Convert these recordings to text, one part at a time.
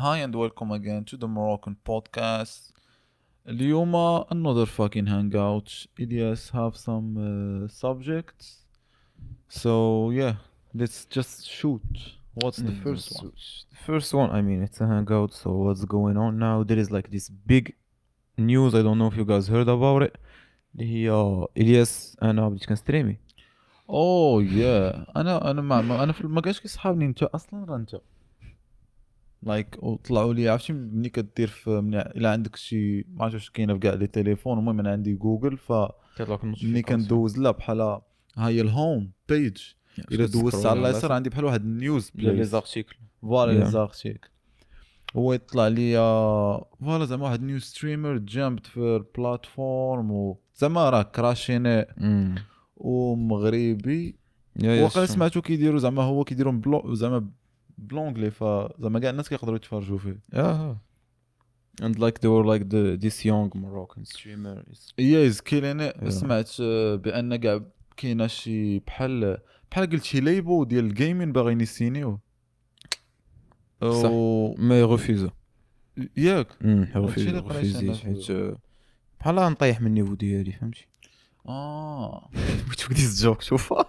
Hi and welcome again to the Moroccan podcast. اليوم another fucking hangout. Ilyas have some subjects. So yeah, let's just shoot. What's the first one? The first one, I mean, it's a hangout, so what's going on now? There is like this big news, I don't know if you guys heard about it. اللي هي الياس انا بديت كنستريمي. Oh yeah. انا ما انا في ما كانش كيصحابني انت اصلا راه انت like وطلعوا لي، عرفتي ملي كدير في ملي الا عندك شي ما عرفتش واش كاينه في كاع les téléphones. المهم انا عندي جوجل، ف كيطلع لك ملي كندوز لا بحال ها هي ال home page، الا دوزت على اليسار عندي بحال واحد ال news les articles. voilà les Yeah. articles. هو يطلع لي voilà زعما واحد new streamer jumped في ال platform و زعما راه كراشيني ومغربي. وقال سمعتو كيديروا زعما هو كيديروا زعما ب l'anglais، فزعما كاع الناس كيقدروا يتفرجوا فيه. Yeah. And like they were like the this young Moroccan streamer is yeah is killing. Yeah. سمعت بان كاع كاينه شي بحال قلت شي label ديال ال gaming باغيين يسينيو. صح. mais refusé. ياك هادشي refusé. اللي قريت أنا refusé في- حيت بحال نطيح من ال niveau ديالي، فهمتي؟ We took this joke too far.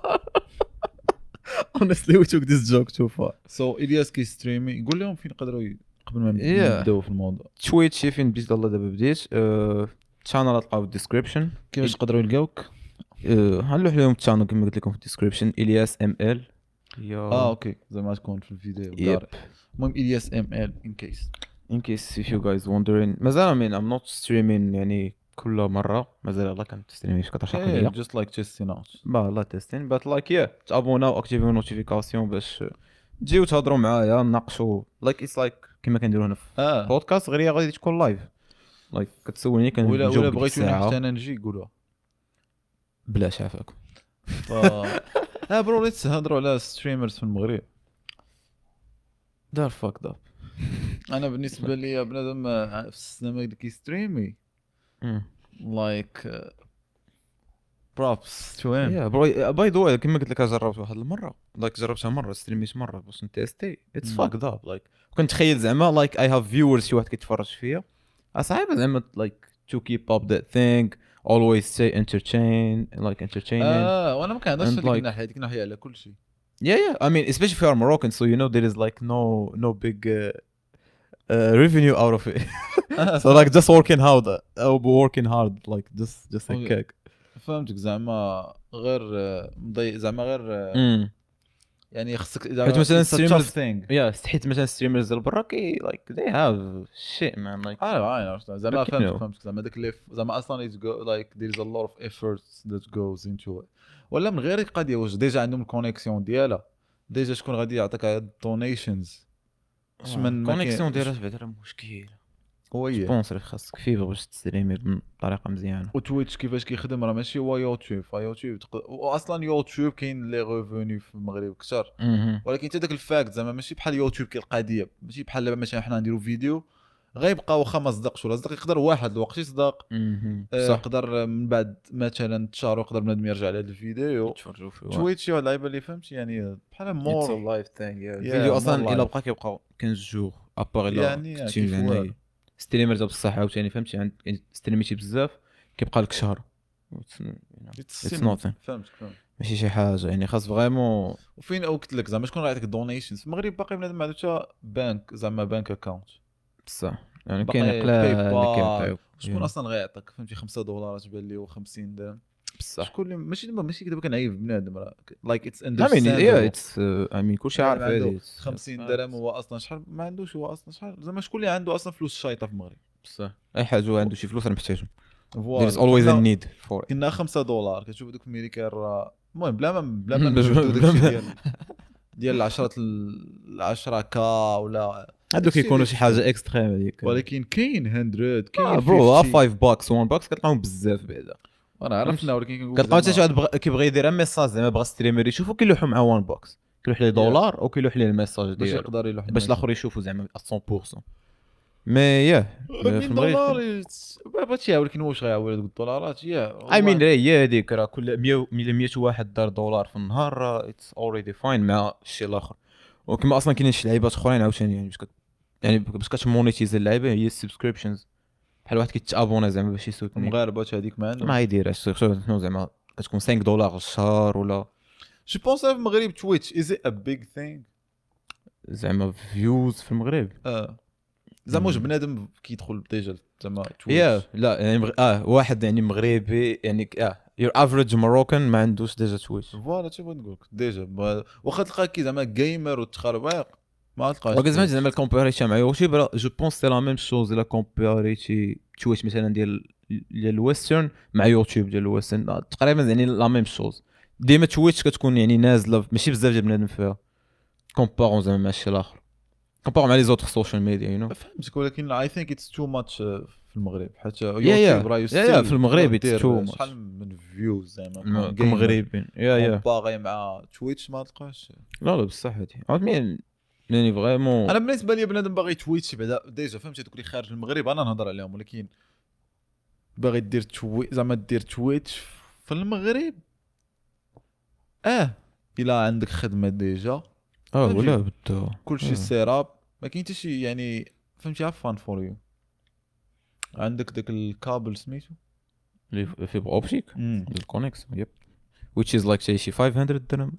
Honestly, we took this joke too far. so الياس كيستريمي، قول لهم فين يقدروا قبل ما Yeah. نبداو في الموضوع. Twitch فين بديت؟ الله دابا بديت. channel تلقاو في ال description. كيفاش يقدروا يلقاوك؟ غنلوح لهم ال channel كما قلت لكم في ال description، الياس ML. okay زعما تكون في الفيديو. Yep. داري. المهم الياس ML in case. In case if you guys wondering. مازال I mean I'm not streaming يعني كل مرة، مازال يلاه كنستريمي شي 14 قليلة. just like testing out. با لا testing but like yeah، تابوناو اكتيفيو notifications باش تجيو تهضروا معايا نناقشوا like it's like كما كنديروا هنا في بودكاست، غير هي غادي تكون live like كتسولني ولا كنجاوب ولا ديك بغيتوني الساعة. حتى انا نجي قولوها. بلاش عافاكم. ف bro let's هضروا على streamers في المغرب. they're fucked up. انا بالنسبة لي بنادم في السينما اللي كيستريمي like props to him. yeah bro، by the way كما قلت لك جربت واحد المرة، like جربتها مرة، ستريميت مرة باش نتيستي. it's fucked up like كنتخيل زعما like I have viewers، شي واحد كيتفرج فيا، صعيبة زعما like to keep up that thing, always stay entertain like entertaining. وانا ما كنهضرش And في ديك like- الناحية، ديك الناحية على كل شيء. Yeah. I mean, especially if you are Moroccan, so you know there is like no big revenue out of it. So like just working hard, working hard, like just like Okay. cake. فهمتك زعما غير مضي زعما غير يعني خصك زعما حيت مثلاً it's a tough streamers- thing. Yeah, حيت مثلا streamers ديال برا كي like they have shit man like. عارف زعما But you فهمتك know. فهمتك زعما داك اللي زعما اصلا it's go like there is a lot of efforts that goes into it. ولا من غير القضية واش déjà عندهم ال connexion ديالها، déjà شكون غادي يعطيك donations؟ اش من ما كاين- connexion ديالها بعدا راه مشكل. هو هي sponsor خاصك fibre باش تستريمي بطريقة مزيانه. و Twitch كيفاش كيخدم راه ماشي هو يوتيوب. فيوتيوب واصلا يوتيوب كاين les revenus في المغرب كثر، ولكن حتى داك ال fact زعما ماشي بحال يوتيوب كاين القضية، ماشي بحال دابا مثلا حنا نديرو فيديو غيبقى واخا ما صدقش ولا صدق، يقدر واحد الوقت يصدق. صح. يقدر من بعد مثلا تشارو يقدر بنادم يرجع على هذا الفيديو. تفرجوا فيه. Twitch شي واحد اللعيبة اللي فهمت يعني بحال it's more live thing. الفيديو more اصلا الا live. بقى كيبقى 15 jours à part الا يعني كنتي كيف يعني والو. streamer ديال بصح عاوتاني فهمتي، عند ستريميتي بزاف كيبقى لك شهر. It's It's nothing. فهمتك فهمت. ماشي شي حاجة يعني خاص vraiment. وفين قلت لك زعما شكون غيعطيك donations في المغرب؟ باقي بنادم ما عندوش حتى بانك زعما bank account. بصح يعني باقي كاين قلال اللي PayPal. كيعطيو. شكون اصلا غيعطيك فهمتي 5 دولار تبان لي و50 درهم؟ بصح شكون اللي ماشي دابا ماشي دابا كنعيب بنادم راه like it's I mean yeah it's I mean كلشي عارف هادي. 50 درهم هو اصلا شحال ما عندوش، هو اصلا شحال زعما شكون اللي عنده اصلا فلوس شايطه في المغرب؟ بصح اي حاجة هو عنده شي فلوس راه محتاجهم. voilà. there is always a need for it. كنا 5 دولار كتشوف دوك الميريكان راه المهم بلا ما باش- نجبدو بلا داكشي ما- ديال 10 10 K ولا هادوك داكشي كيكونوا اللي شي حاجة extrême هذيك. ولكن كاين 100 كاين bro 50. 5 bucks 1 bucks كتلقاهم بزاف بعدا. انا عرفنا ولكن كنقول كتلقاو حتى شي زعما واحد كيبغي يدير message زعما بغى streamer يشوفو كيلوحو مع 1 bucks، كيلوح ليه دولار او كيلوح ليه ال message باش ديالو يقدر يلوح باش الاخر يشوفو زعما 100%. mais yeah في 100 المغرب دولار بغيتي، ولكن واش غيعاود هذوك الدولارات؟ yeah I mean هي هذيك راه كل 100 100 واحد دار دولار في النهار it's already fine مع الشيء الاخر. وكما اصلا كاينين شي لعيبات اخرين عاوتاني يعني باش يعني باش كت monetize اللعيبة هي ال subscriptions، بحال واحد كيت abonner زعما باش يسوتني. المغاربة هذيك ما عندهم ما يديرهاش شنو زعما كتكون $5 الشهر ولا je pense في المغرب Twitch is a big thing زعما views في المغرب. زعما واش بنادم كيدخل déjà زعما Twitch؟ لا يعني واحد يعني مغربي يعني your average Moroccan ما عندوش déjà Twitch. voilà شنو بغيت نقول لك déjà، واخا تلقى كي زعما gamer وتخربيق ما تلقاش. ولكن زعما comparé مع YouTube je pense c'est la même chose الا comparé Twitch مثلا ديال ال western مع يوتيوب ديال ال western تقريبا يعني la même chose. ديما Twitch كتكون يعني نازله ماشي بزاف ديال بنادم فيها comparant زعما مع الشيء الاخر، comparant مع les autres social media you know. فهمتك، ولكن I think it's too much في المغرب حيت يوتيوب راه في المغرب it's too much. شحال من views زعما كمغربيين yeah comparé مع Twitch ما تلقاش. لا لا بصح هادي عرفت يعني vraiment. انا بالنسبة لي بنادم باغي Twitch بعدا déjà فهمتي، دوك اللي خارج المغرب انا نهضر عليهم، ولكن باغي دير زعما دير Twitch في المغرب الا عندك خدمة déjà ولا بدا كلشي setup ما كاين حتى شي يعني فهمتي fun for you. عندك داك الكابل سميتو اللي fibre optique ال connexion yep which is like شي 500 درهم.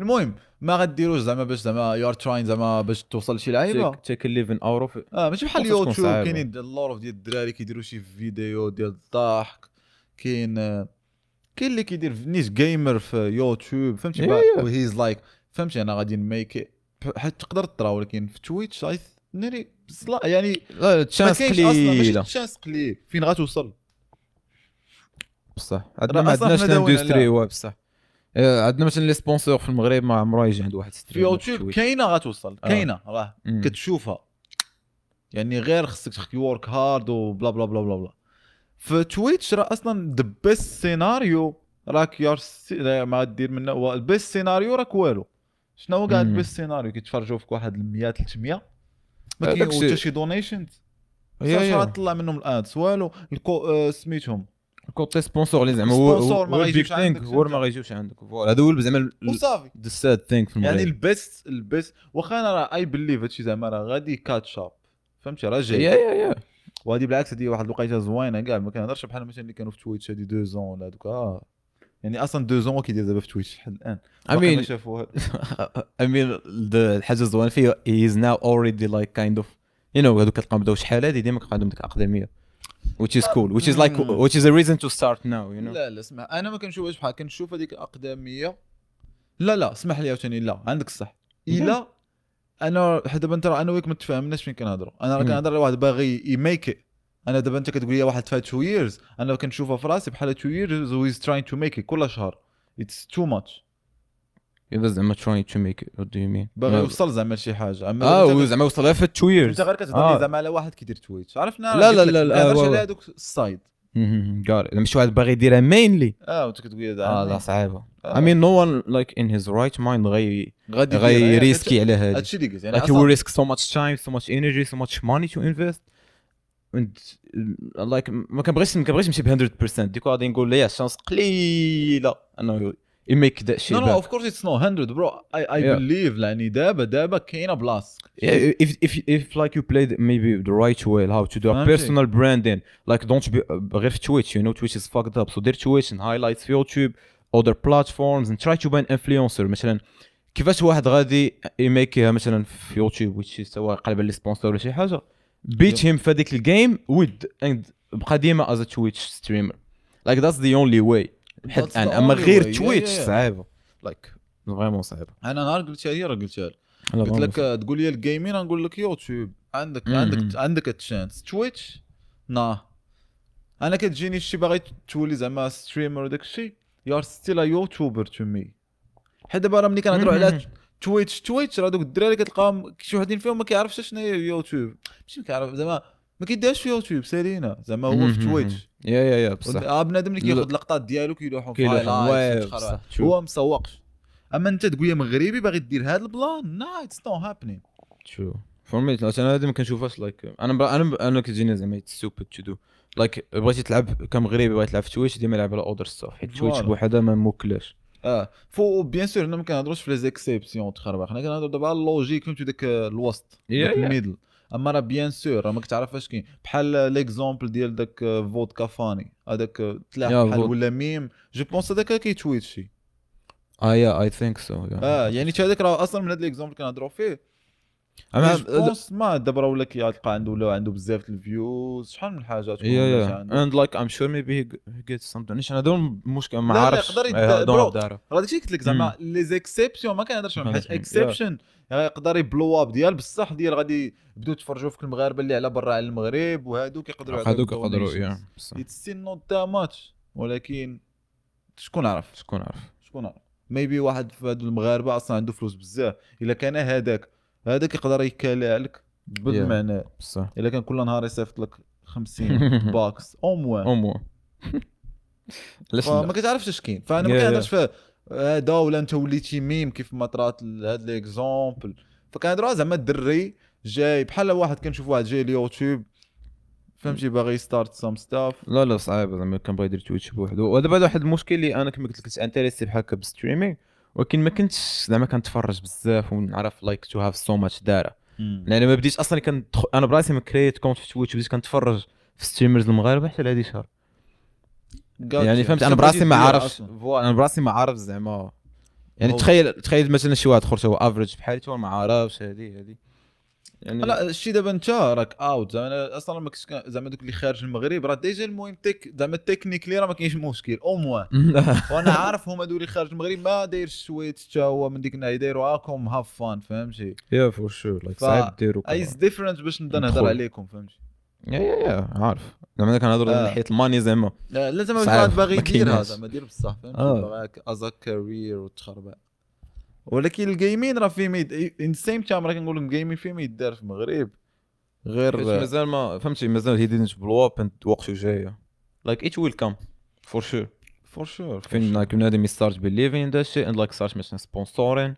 المهم ما غديروش زعما باش زعما you are trying زعما باش توصل لشي لعيبة take 11 اورو. ماشي بحال اليوتيوب كاينين lot of ديال الدراري كيديروا شي فيديو ديال الضحك، كاين اللي كيدير نيش gamer في يوتيوب فهمتي و he's like فهمتي انا غادي ن make حيت تقدر ترى، ولكن في Twitch ناري يعني chance قليله، chance قليل فين غتوصل بصح. عندنا ما عندناش l'industrie بصح عندنا مثلا les sponsors في المغرب ما عمرو يجي عند واحد streamer. في يوتيوب كاينه غتوصل كاينه راه كتشوفها يعني غير خصك work hard و bla bla bla bla bla. في Twitch راه اصلا the best scenario راك يار ما دير منه ال best scenario راك والو. شنو هو كاع ال best scenario؟ كيتفرجوا فيك واحد 100 300 ما كاين حتى شي donations شحال طلع منهم ال ads والو. سميتهم côté sponsor اللي زعما هو ما غيجيوش عندك، هو ما غيجيوش عندك voilà. هذا هو زعما وصافي the sad thing في المغرب يعني ال best واخا انا راه I believe هادشي زعما راه غادي catch up فهمتي راه جاي yeah وهادي بالعكس هادي واحد الوقيته زوينة كاع ما كنهضرش بحال مثلا اللي كانوا في Twitch هادي 2 ans ولا هذوك يعني اصلا 2 ans كيدير دابا في Twitch لحد الان I mean شافوها. I mean الحاجة الزوينة فيه he is now already like kind of you know هذوك كتلقاهم بداو شحال هادي ديما كيبقى عندهم ديك الاقدميه which is cool which is like which is a reason to start now you know. لا لا اسمع انا ما كنشوفهاش بحال كنشوف هذيك الاقدميه. لا لا اسمح لي عاوتاني لا عندك الصح. الا انا دابا انت انا وياك ما تفاهمناش فين كنهضروا. انا راه كنهضر على واحد باغي ي make. انا دابا انت كتقول لي واحد فات 2 years انا كنشوفها في راسي بحال 2 years و he's trying to make it كل شهر it's too much. اذا زعما trying to make it what do you mean باغي يوصل زعما لشي حاجة اما زعما وصلها في 2 years. انت غير كتهضر زعما على واحد كيدير Twitch عرفنا. لا لا لا لا على هذوك ال side كار ماشي واحد باغي يديرها mainly وانت كتقول لا صعيبة. I mean no one like in his right mind غي risquer على هذا هادشي اللي قلت يعني like he will risk so much time so much energy so much money to invest and like ما كنبغيش نمشي ب 100% ديك غادي نقول ليه chance قليله انه you make that shit. No, of course it's not 100 bro. I believe يعني دابا كاينه بلاص. If like you played maybe the right way how to do a personal branding like don't be غير في Twitch you know Twitch is fucked up so دير Twitch and highlights في YouTube other platforms and try to be an influencer. مثلا كيفاش واحد غادي يميكيها مثلا في يوتيوب which is سواء قلب les sponsors ولا شي حاجة beat him في هذيك ال game with and بقى ديما as a Twitch streamer like that's the only way لحد الان. اما غير Twitch صعيبة like vraiment صعيبة. انا نهار قلتها لي راه قلتها لك قلت لك تقول لي ال gaming نقول لك يوتيوب عندك عندك عندك ال chance. Twitch nah انا كتجيني شي باغي تولي زعما streamer وداك الشيء you are still a YouTuber to me. حيت دابا راه ملي كنهضروا على Twitch راه دوك الدراري كتلقاهم شي وحدين فيهم ما كيعرفش شنو هي يوتيوب ماشي كيعرف زعما ما كيديرش في يوتيوب سالينا زعما هو في Twitch yeah yeah بصح بنادم اللي كياخذ لقطات ديالو كيلوحهم في highlights هو مسوقش. اما انت تقول يا مغربي باغي دير هذا ال plan nah it's not happening true for me. انا هذه ما كنشوفهاش like انا كتجيني زعما stupid to do like بغيتي تلعب كمغربي بغيتي تلعب في Twitch ديما لعب على other stuff حيت Twitch بوحدها ما موكلاش. faut bien sûr حنا ما كنهضروش في les exceptions تخربق، حنا كنهضروا دابا على ال logique فهمتي داك الوسط داك ال middle. اما راه bien sûr راه ما كتعرف اش كاين، بحال l'exemple ديال داك فودكا فاني هذاك تلاح بحال ولا meme je pense هذاك كيتويتشي. yeah I think so. يعني حتى هذاك راه اصلا من هذا l'exemple كنهضروا فيه. انا pense ما دابا راه ولا كيتلقى عنده ولا عنده بزاف ال views شحال من حاجة تكون and like I'm sure maybe he gets something. انا دون المشكل ما عارفش راه داكشي قلت لك زعما les exceptions ما كنهضرش عليهم حيت exception يقدر ي blow up ديال بصح ديال غادي يبداو يتفرجوا في المغاربة اللي على برا على المغرب وهادوك يقدروا هادوك يقدروا it's still not that much. ولكن شكون عرف شكون عرف maybe واحد في هادو المغاربة اصلا عنده فلوس بزاف، الا كان هذاك يقدر يكالع لك بالمعنى بصح. الا كان كل نهار يصيفط لك 50 bucks au moins ما كتعرفش اش كاين. فانا ما كنهضرش في هذا ولا انت وليتي ميم كيف ما طرات هاد l'exemple. فكنهضروا زعما الدري جاي بحال واحد كنشوف واحد جاي اليوتيوب فهمتي باغي start some stuff. لا صعيب زعما كان باغي يدير تويتش بوحدو. ودابا واحد المشكل اللي انا كما قلت لك كنت intéressé بحال هكا بال streaming، ولكن ما كنتش زعما كنتفرج بزاف ونعرف like to have so much data. لان ما بديتش اصلا انا براسي ما كريت compte في تويتش، بديت كنتفرج في streamers المغاربة حتى لهادي شهر يعني فهمت. انا براسي ما عارفش voilà، انا براسي ما عارف زعما يعني تخيل مثلا شي واحد اخر هو average بحالي هو ما عارفش هادي يعني. لا الشيء دابا انت راك out زعما اصلا ما كنتش زعما دوك اللي خارج المغرب راه déjà المهم tech زعما technically راه ما كاينش مشكل au moins. وانا عارف هما دول اللي خارج المغرب ما دايرش تويتش حتى هو من ديك الناحية دايروا هاكم have fun فهمتي. yeah for sure like صعيب ديروا it's different باش نبدا نهضر عليكم فهمتي. yeah عارف زعما كنهضروا من ناحية ال money زعما لا زعما واحد باغي يديرها زعما دير بصح فهمتي باغي as a career وتخربع. ولكن ال gaming راه فيه in same time راه كنقول ال gaming فيه ما يدار في المغرب غير مازال ما فهمتي مازال he didn't blow up and وقته جاية like it will come for sure for sure. فين like بنادم start believing in that shit and like start مثلا sponsoring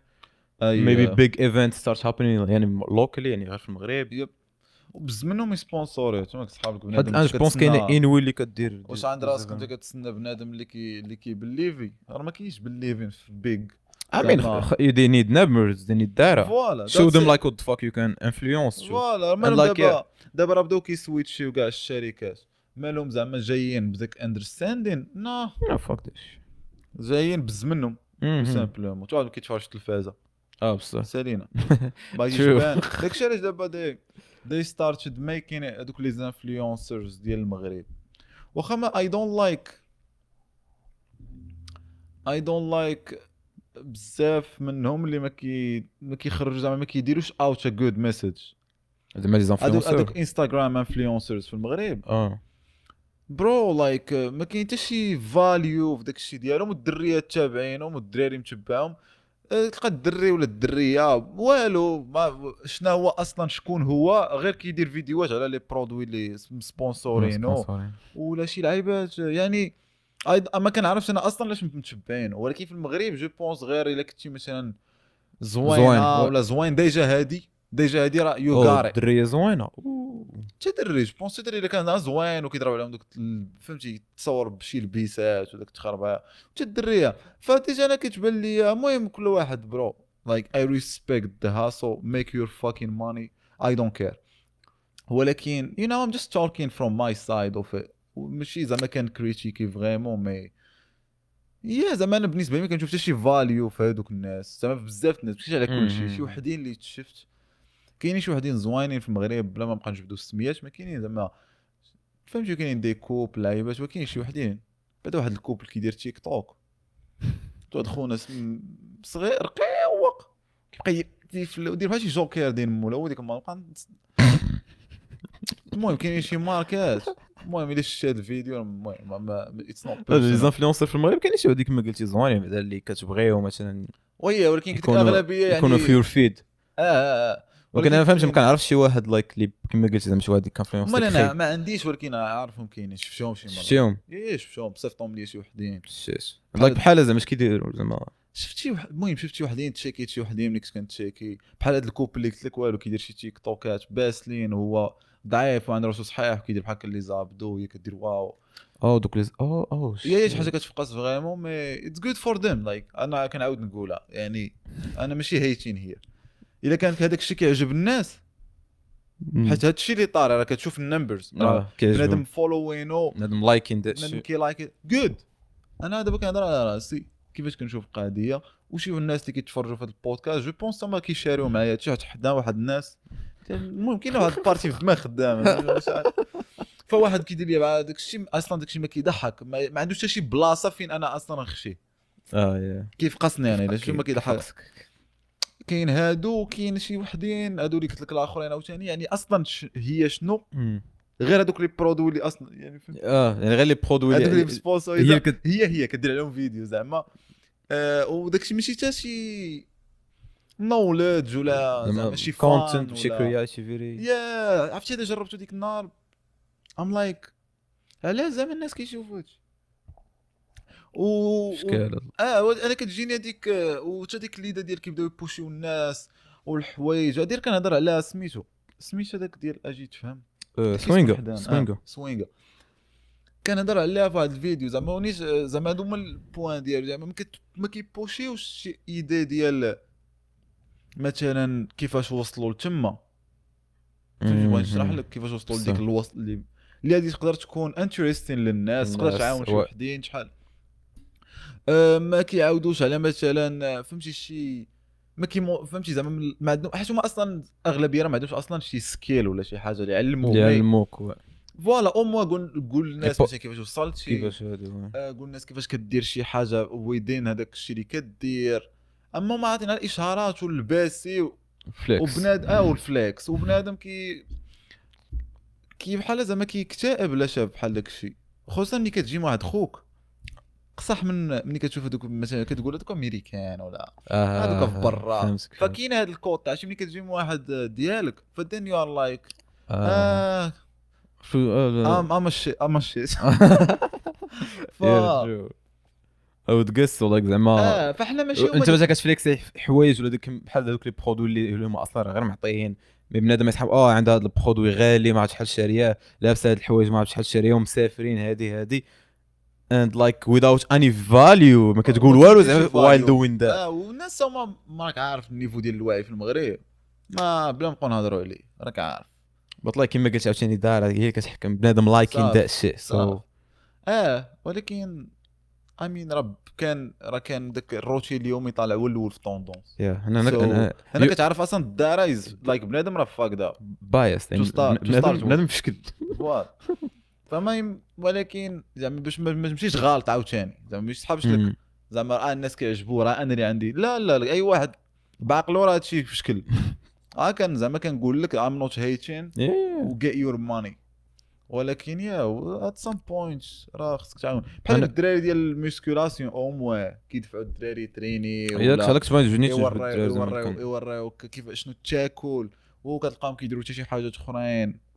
maybe big event start happening يعني locally يعني غير في المغرب. yep وبز منهم يسبونسوري تما صحابك بنادم. انا pense كاين انوي اللي كدير واش عند راسك انت كتسنى بنادم اللي كيبليفي راه ما كاينش believing في big. I mean, they need numbers, they need data. Voilà, show them like what the fuck you can influence. Voilà, like دابا راه بداو كيسويتشيو كاع الشركات مالهم زعما جايين بداك understanding no fuck this. جايين بز منهم simplement تقعد كيتفرج التلفازه بصح سالينا باغي يبان داكشي علاش دابا they started making هذوك les influencers ديال المغرب. واخا ما I don't like بزاف منهم اللي ما كيخرجوا زعما ما كيديروش out a good message زعما les influenceurs هذوك انستغرام influencers في المغرب bro like ما كاين حتى شي value في داك الشيء ديالهم، والدريات تابعينهم والدراري متبعهم. تلقى الدري ولا الدريه والو ما شنو هو اصلا شكون هو غير كيدير فيديوهات على les produits اللي سبونسورينو ولا شي لعيبات يعني ما كنعرفش انا اصلا علاش متشبعين. ولكن في المغرب je pense غير الا كنتي مثلا زوينة ولا زوين déjà هادي راه you got it الدريه زوينة حتى دري je pense دري الا كان زوين وكيضرب عليهم دوك فهمتي تصور بشي لبيسات وداك التخربه حتى الدريه ف déjà انا كتبان لي المهم كل واحد bro like I respect the hustle make your fucking money I don't care. ولكن you know I'm just talking from my side of it ماشي زعما كان كريتيكي vraiment mais yeah زعما انا بالنسبة لي ما كنشوف حتى شي value في هذوك الناس زعما بزاف الناس ماشي على كل شيء. شي وحدين اللي شفت كاينين شي وحدين زوينين في المغرب بلا ما نبقى نجبدو السميات ما كاينين زعما فهمتي كاينين des couples لعيبات وكاين شي وحدين بعد واحد ال couple كيدير تيك توك واحد خونا صغير رقيق كيبقى يدير بحال شي جوكير ديال مولا وديك المرة. المهم كاينين شي ماركات المهم الا شفت هذا الفيديو المهم it's not les influenceurs في المغرب كاين شي هذيك ما قلتي زوينين بعدا اللي كتبغيهم مثلا oui ولكن كنت الاغلبية يعني يكونوا في your feed ولكن انا فهمت ما كنعرفش شي واحد like اللي كما قلتي زعما شي واحد influenceur. انا ما عنديش ولكن عارفهم كاينين شفتهم شي مرة شفتهم ايه شفتهم صيفطهم لي شي وحدين like بحال زعما اش كيديروا زعما شفت شي المهم شفت شي وحدين تشيكيت شي وحدين ملي كنت كنتشيكي بحال هذا ال couple اللي قلت لك والو كيدير شي تيك توكات باسلين وهو ضعيف وعنده راسو صحيح وكيدير بحال هكا les abdos وهي كدير wow دوك les او هي شي حاجة كتفقس vraiment mais it's good for them like انا كنعاود نقولها يعني انا ماشي hating هي الا كان هذاك الشيء كيعجب الناس حيت هادشي اللي طاري راه كتشوف ال numbers، بنادم following، بنادم liking بنادم كي like good. انا دابا كنهضر على راسي كيفاش كنشوف القضية، وشي الناس اللي كيتفرجوا في هذا البودكاست je pense هما كيشاريو معايا هادشي، حيت حدا واحد الناس المهم كاين واحد ال partie في الدماغ خدامه. فواحد كيدير لي مع داك الشيء اصلا داك الشيء ما كيضحك، ما عندوش حتى شي بلاصة فين انا اصلا نخشي. كيف قصني انا الا شي ما كيضحك. كاين هادو، كاين شي وحدين هادو اللي قلت لك الاخرين عاوتاني، يعني اصلا هي شنو غير هادوك les produits اللي اصلا يعني يعني غير les produits هادوك اللي sponsor هي كدير عليهم فيديو زعما. وداك الشيء ماشي حتى شي knowledge ولا زعما شي content شي creativity. يا عرفتي اذا جربتو ديك النهار I'm like علاش زعما الناس كيشوفوا هادشي و انا كتجيني هذيك وحتى ديك l'idée ديال كيبداو يبوشيو الناس والحوايج هادي. كنهضر على سميتو هذاك ديال اجي تفهم سوينغا كنهضر عليها في واحد الفيديو زعما ونيش زعما هادو هما ال points ديالو زعما ما كيبوشيوش شي idée ديال مثلا كيفاش وصلوا لتما. فهمتي بغيت نشرح لك كيفاش وصلوا لديك الوصل اللي هادي تقدر تكون interesting للناس، تقدر تعاون شي وحدين شحال. ما كيعاودوش على مثلا فهمتي شي ما كي فهمتي زعما ما عندهم، حيت هما اصلا اغلبية راه ما عندهمش اصلا شي skill ولا شي حاجة اللي يعلموك voilà au moins قول للناس مثلا كيفاش وصلت كيفاش هادو، قول للناس كيفاش كدير شي حاجة within هذاك الشيء اللي كدير. اما ما عطينا الاشهارات والباسي وبنادم وال flex، وبنادم كي بحال زعما كيكتئب لا شاف بحال داك الشيء، خصوصا ملي كتجي مع واحد خوك قصح من ملي كتشوف هذوك مثلا كتقول هذوك امريكان ولا هذوك في برا، فكاين هذا الكوط عرفتي ملي كتجي مع واحد ديالك ف then you are like I'm shit او تقص ولا زعما فاحنا ماشي انت مثلا كتفليكسي حوايج ولا ديك بحال هذوك les produits اللي هما اصلا غير معطيين، mais بنادم يسحب عند هذا ال produit غالي ما عرفت شحال شاريه، لابسه هاد الحوايج ما عرفت شحال شاريه، ومسافرين هادي and like without any value ما كتقول والو زعما while doing that. والناس هما ما راك عارف ال niveau ديال الوعي في المغرب، ما بلا نبقاو نهضروا عليه راك عارف. but like كما قلت عاوتاني دار هي كتحكم بنادم liking that shit so ولكن I mean راه كان راه كان داك الروتين اليومي طالع هو الاول في tendance. انا كتعرف اصلا الدار is like بنادم راه fucked up biased بنادم في شكل فما، ولكن زعما باش ما تمشيش غلط عاوتاني زعما ماشي صحابش لك زعما راه الناس كيعجبوه راه انا اللي عندي لا لا اي واحد بعقلو راه هادشي في شكل. كان زعما كنقول لك I'm not hating و get your money، ولكن yeah at some point راه خصك تعاون بحال الدراري ديال ال musculation au moins كيدفعوا الدراري تريني ولا هذاك تبان يوريوك كيف شنو تاكل، وكتلقاهم كيديروا حتى شي حاجات اخرين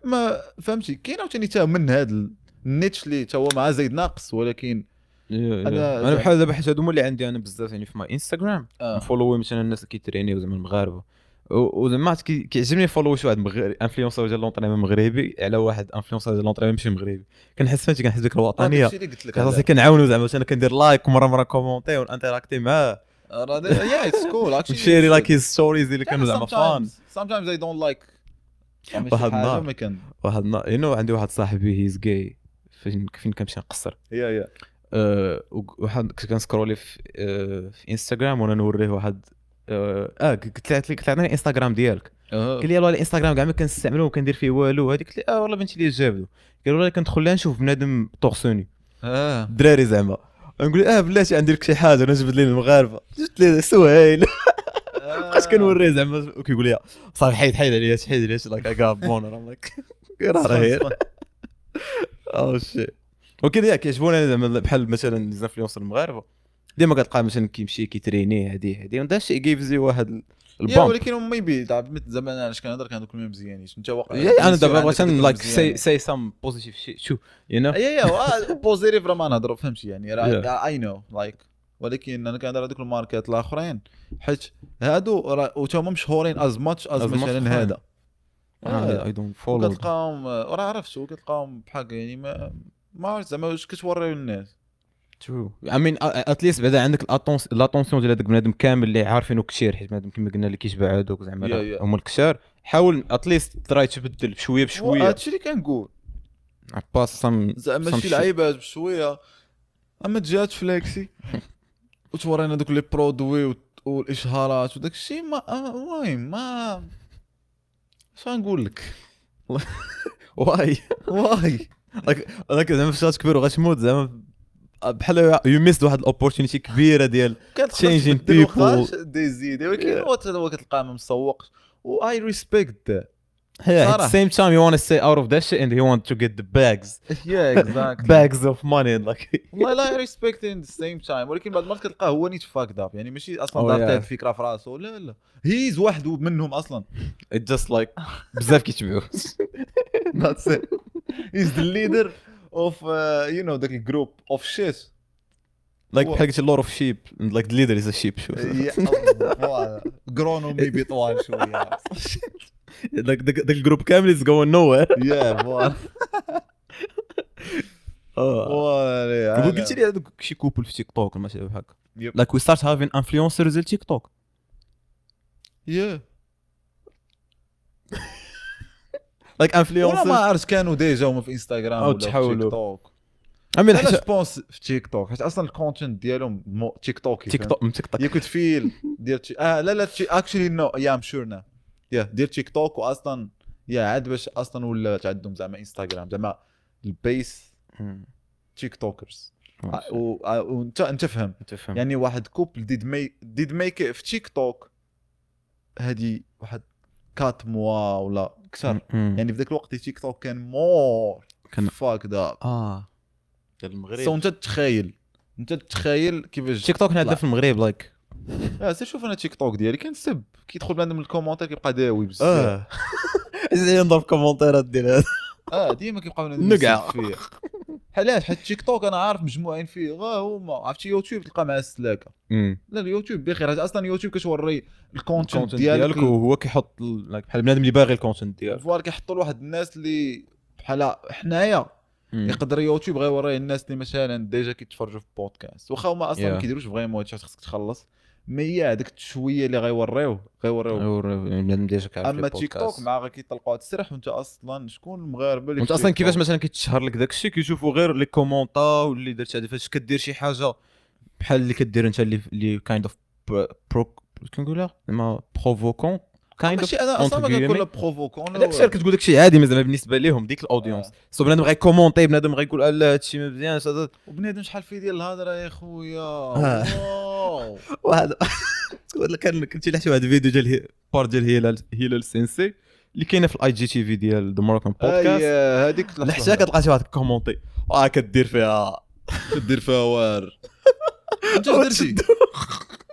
ما فهمتي. كاين عاوتاني تا من هذا ال niche اللي تا هو مع زايد ناقص، ولكن انا بحال دابا حيت هادو هما اللي عندي انا بزاف يعني في my انستغرام نفولوي مثلا الناس اللي كيترينيو زعما المغاربة، وزعما كيعجبني follow شي واحد مغربي influenceur ديال l'entraînement مغربي على واحد influenceur ديال l'entraînement ماشي مغربي، كنحس فهمتي كنحس ديك الوطنية راسي كنعاونو زعما انا كندير like ومرة مرة commenter ونانتراكتي معاه yeah it's cool actually نشيري like his stories اللي كانوا زعما fun. sometimes I don't like واحد النهار واحد النهار you know عندي واحد صاحبي he's gay فين كنمشي نقصر yeah واحد كنت كنسكرولي في انستغرام وانا نوريه واحد قلت لك قلت عطيني الانستغرام ديالك، قال لي والله الانستغرام كاع ما كنستعملو وكندير فيه والو هذيك. قلت لي والله بنتي لي جابدو، قال والله كندخل لها نشوف بنادم torse nu الدراري زعما، نقول بلاتي عندي لك شي حاجة، انا جبت لي المغاربة جبت لي سهيل بقيت كنوريه زعما وكيقول لي صافي حيد حيد عليا حيد عليا like I got boner I'm like راه oh shit. وكذا كيعجبوني زعما بحال مثلا les influenceurs المغاربة ديما كتلقى مثلا كيمشي كيتريني هادي ودا شي gives you واحد ال bump. ولكن maybe زعما انا علاش كنهضر كنهضر كلهم مزيانين انت واقع انا دابا بغيت like say some positive shit شو you know yeah positive راه ما نهضروا فهمتي يعني راه I know like، ولكن انا كنهضر هذوك الماركات الاخرين حيت هادو راه هما مشهورين as much as مثلا هذا I don't follow كتلقاهم راه عرفتو كتلقاهم بحال يعني ما عرفت زعما واش كتوريو للناس. True. I mean at least بعدا عندك l'attention ديال هذاك بنادم كامل اللي عارفينو كثير، حيت بنادم كما قلنا اللي كيشبع هذوك زعما هما الكثار حاول at least try تبدل بشوية بشوية. هادشي اللي كنقول باس some زعما شي لعيبات بشوية. اما تجي تفليكسي وتورينا دوك les produits والاشهارات وداك الشيء، ما المهم ما اش غنقول لك. why why like زعما فاش كبر وغتموت زعما بحال you missed واحد ال opportunity كبيرة ديال changing people ديزيد، ولكن هو كتلقاه ما مسوقش و I respect. Yeah, at the same time you want to stay out of that shit and you want to get the bags. Yeah, exactly. Bags of money like. والله لا I respect in the same time، ولكن بعد المرات كتلقاه هو نيت fucked up، يعني ماشي اصلا دار هاد الفكرة في راسو، لا لا he's واحد منهم اصلا. It just like بزاف كيتبعوا. That's it. He's the leader of you know the group of shit. Like بحال قلتي lot of sheep and like the leader is a sheep. Yeah, grown maybe طوال شوية. Like the group كامل is going nowhere. Yeah, voilà. قلت لي هذوك شي couple في تيك توك ولا شي بحال هكا. Like we start having influencers ديال تيك توك. Yeah. Like influencers. ما عرفت كانوا déjà هما في انستغرام ولا في تيك توك. انا je pense في تيك توك حيت اصلا ال content ديالهم تيك توك. تيك توك تيك توك. you could feel ديال لا لا actually no yeah I'm sure now. yeah دير تيك توك واصلا yeah عاد باش اصلا ولا عندهم زعما انستغرام زعما ال base TikTokers. وانت انت فهم يعني واحد couple did make في تيك توك هذه واحد 4 mois ولا اكثر، يعني في ذاك الوقت تيك توك كان more fucked up ديال المغرب. so انت تخيل كيفاش تيك توك عندنا في المغرب like سير شوف انا تيك توك ديالي كنسب كيدخل بنادم ال commentaire كيبقى داوي بزاف. زين نضرب كومونتيرات ديال هذا ديما كيبقى بنادم نقع فيه. علاش؟ حيت تيك توك انا عارف مجموعين فيه غا هما. عرفتي يوتيوب تلقى مع السلاكه. لا اليوتيوب بخير، اصلا يوتيوب كتوري ال content ديالك وهو كيحط بحال بنادم اللي باغي ال content ديالك voilà، كيحطوا لواحد الناس اللي بحال حنايا. يقدر يوتيوب غيوريه الناس اللي مثلا déjà كيتفرجوا في بودكاست واخا هما اصلا ما كيديروش vraiment هادشي خصك تخلص، mais هذاك شوية اللي غيوريوه بنادم déjà كيعرف. اما تيك توك مع غير كيطلقوا هاد السرح وانت اصلا شكون المغاربة اللي انت اصلا كيفاش مثلا كيتشهر لك داك الشيء كيشوفوا غير les commentaires واللي درت هذه. فاش كدير شي حاجة بحال اللي كدير انت اللي kind of pro كنقولها زعما provoquant kind of، انا اصلا ما كنقول provoquant، داك الشيء كتقول داك الشيء عادي زعما بالنسبة لهم ديك ال audience. so بنادم غيكومونتي، بنادم غيقول لا هادشي ما مزيانش، وبنادم شحال فيه ديال الهضرة يا خويا. واحد كان كنتي لحتي واحد الفيديو ديال part ديال هلال سينسي اللي كاينه في ال IGTV ديال The Moroccan Podcast. هذيك لحتى كتلقى شي واحد كومونتي كدير فيها وار انت درتي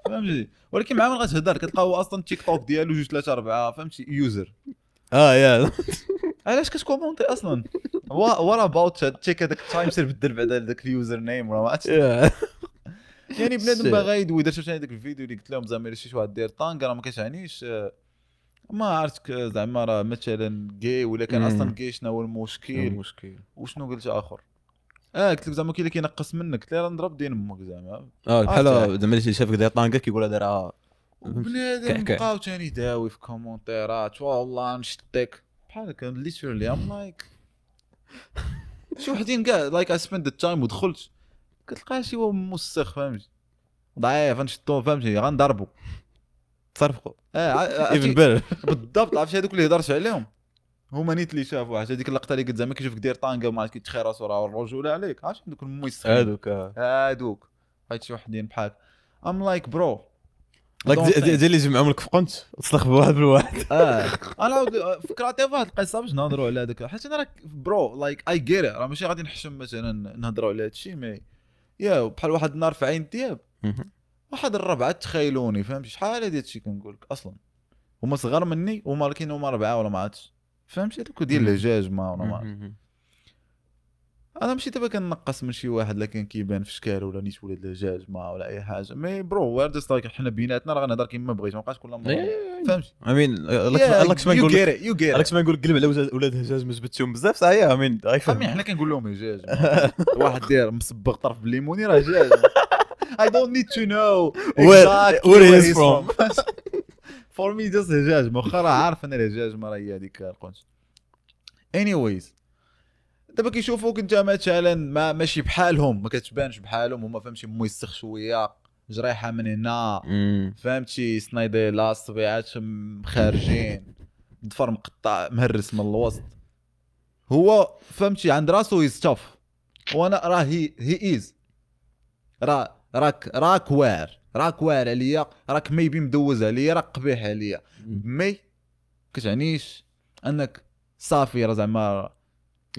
فهمتي، ولكن مع من غتهضر كتلقى هو اصلا تيك توك ديالو 2 3 4 فهمتي user. yeah علاش كتكومونتي اصلا؟ what about check هذاك ال time سير بدل بعدا داك ال username ولا ما عرفتش. يعني بنادم باغي يدوي. درت ثاني داك الفيديو اللي قلت لهم زعما الا شي واحد داير طانغ راه ما كتعنيش ما عرفتك زعما راه مثلا gay ولا كان اصلا gay شنو هو المشكل وشنو قلت اخر. قلت لك زعما كاين اللي كينقص منك، قلت له راه نضرب دين امك زعما. بحال زعما اللي شافك داير طانكا كيقول هذا راه بنادم. بقاو ثاني داوي في كومونتيرات والله نشتك بحال هكا literally I'm like شي وحدين كاع like I spend the time ودخلت كتلقى شي هو موسخ فهمتي ضعيف نشدو فهمتي غنضربو تصرفقوا even better بالضبط. عرفتي هذوك اللي هضرت عليهم هما نيت اللي شافوا حتى هذيك اللقطة اللي قلت زعما كيشوفك داير طانكا وما عرفت كيتخير راسو راه الرجولة عليك. عرفتي دوك الموسخين هادوك حيت شي وحدين بحال I'm like bro like ديال اللي جمعهم لك في قنت تسلخ بواحد بالواحد. انا فكرتي في واحد القصة باش نهضروا على هذاك، حيت انا راه bro like I get راه ماشي غادي نحشم مثلا نهضروا على هادشي mais yeah بحال واحد النهار في عين دياب واحد الربعه تخيلوني فهمتي شحال هادي هادشي كنقول لك اصلا هما صغار مني وما لكن هما ربعه ولا ما عرفتش فهمتي هذوك ديال الهجاج ما ولا ما عرفت. انا ماشي دابا كنقص من شي واحد لكن كيبان في شكال ولا نيت ولاد الهجاج ما ولا اي حاجة mais bro we're just like حنا بيناتنا راه غنهضر كيما بغيت ما بقاش كل مرة فهمتي. I mean لك ما نقول لك ما نقول قلب على ولاد الهجاج ما جبتهم بزاف صحيح. I mean I mean حنا كنقول لهم هجاج واحد داير مصبغ طرف بالليموني راه هجاج. I don't need to know where he is from. for me just هجاج، واخا راه عارف ان الهجاج ما راه هي هذيك القنت. anyways دابا كيشوفوك انت مثلا ما ماشي بحالهم، ما كتبانش بحالهم هما، فهمتي، موسخ شويه، جريحه من هنا، فهمتي، سنايديلا، الصبيعات خارجين، ضفر مقطع مهرس من الوسط. هو فهمتي عند راسو he's tough، وانا راه he is راه راك واعر، راك واعر عليا، راك maybe مدوز عليا، راك قبيح عليا، mais كتعنيش انك صافي راه زعما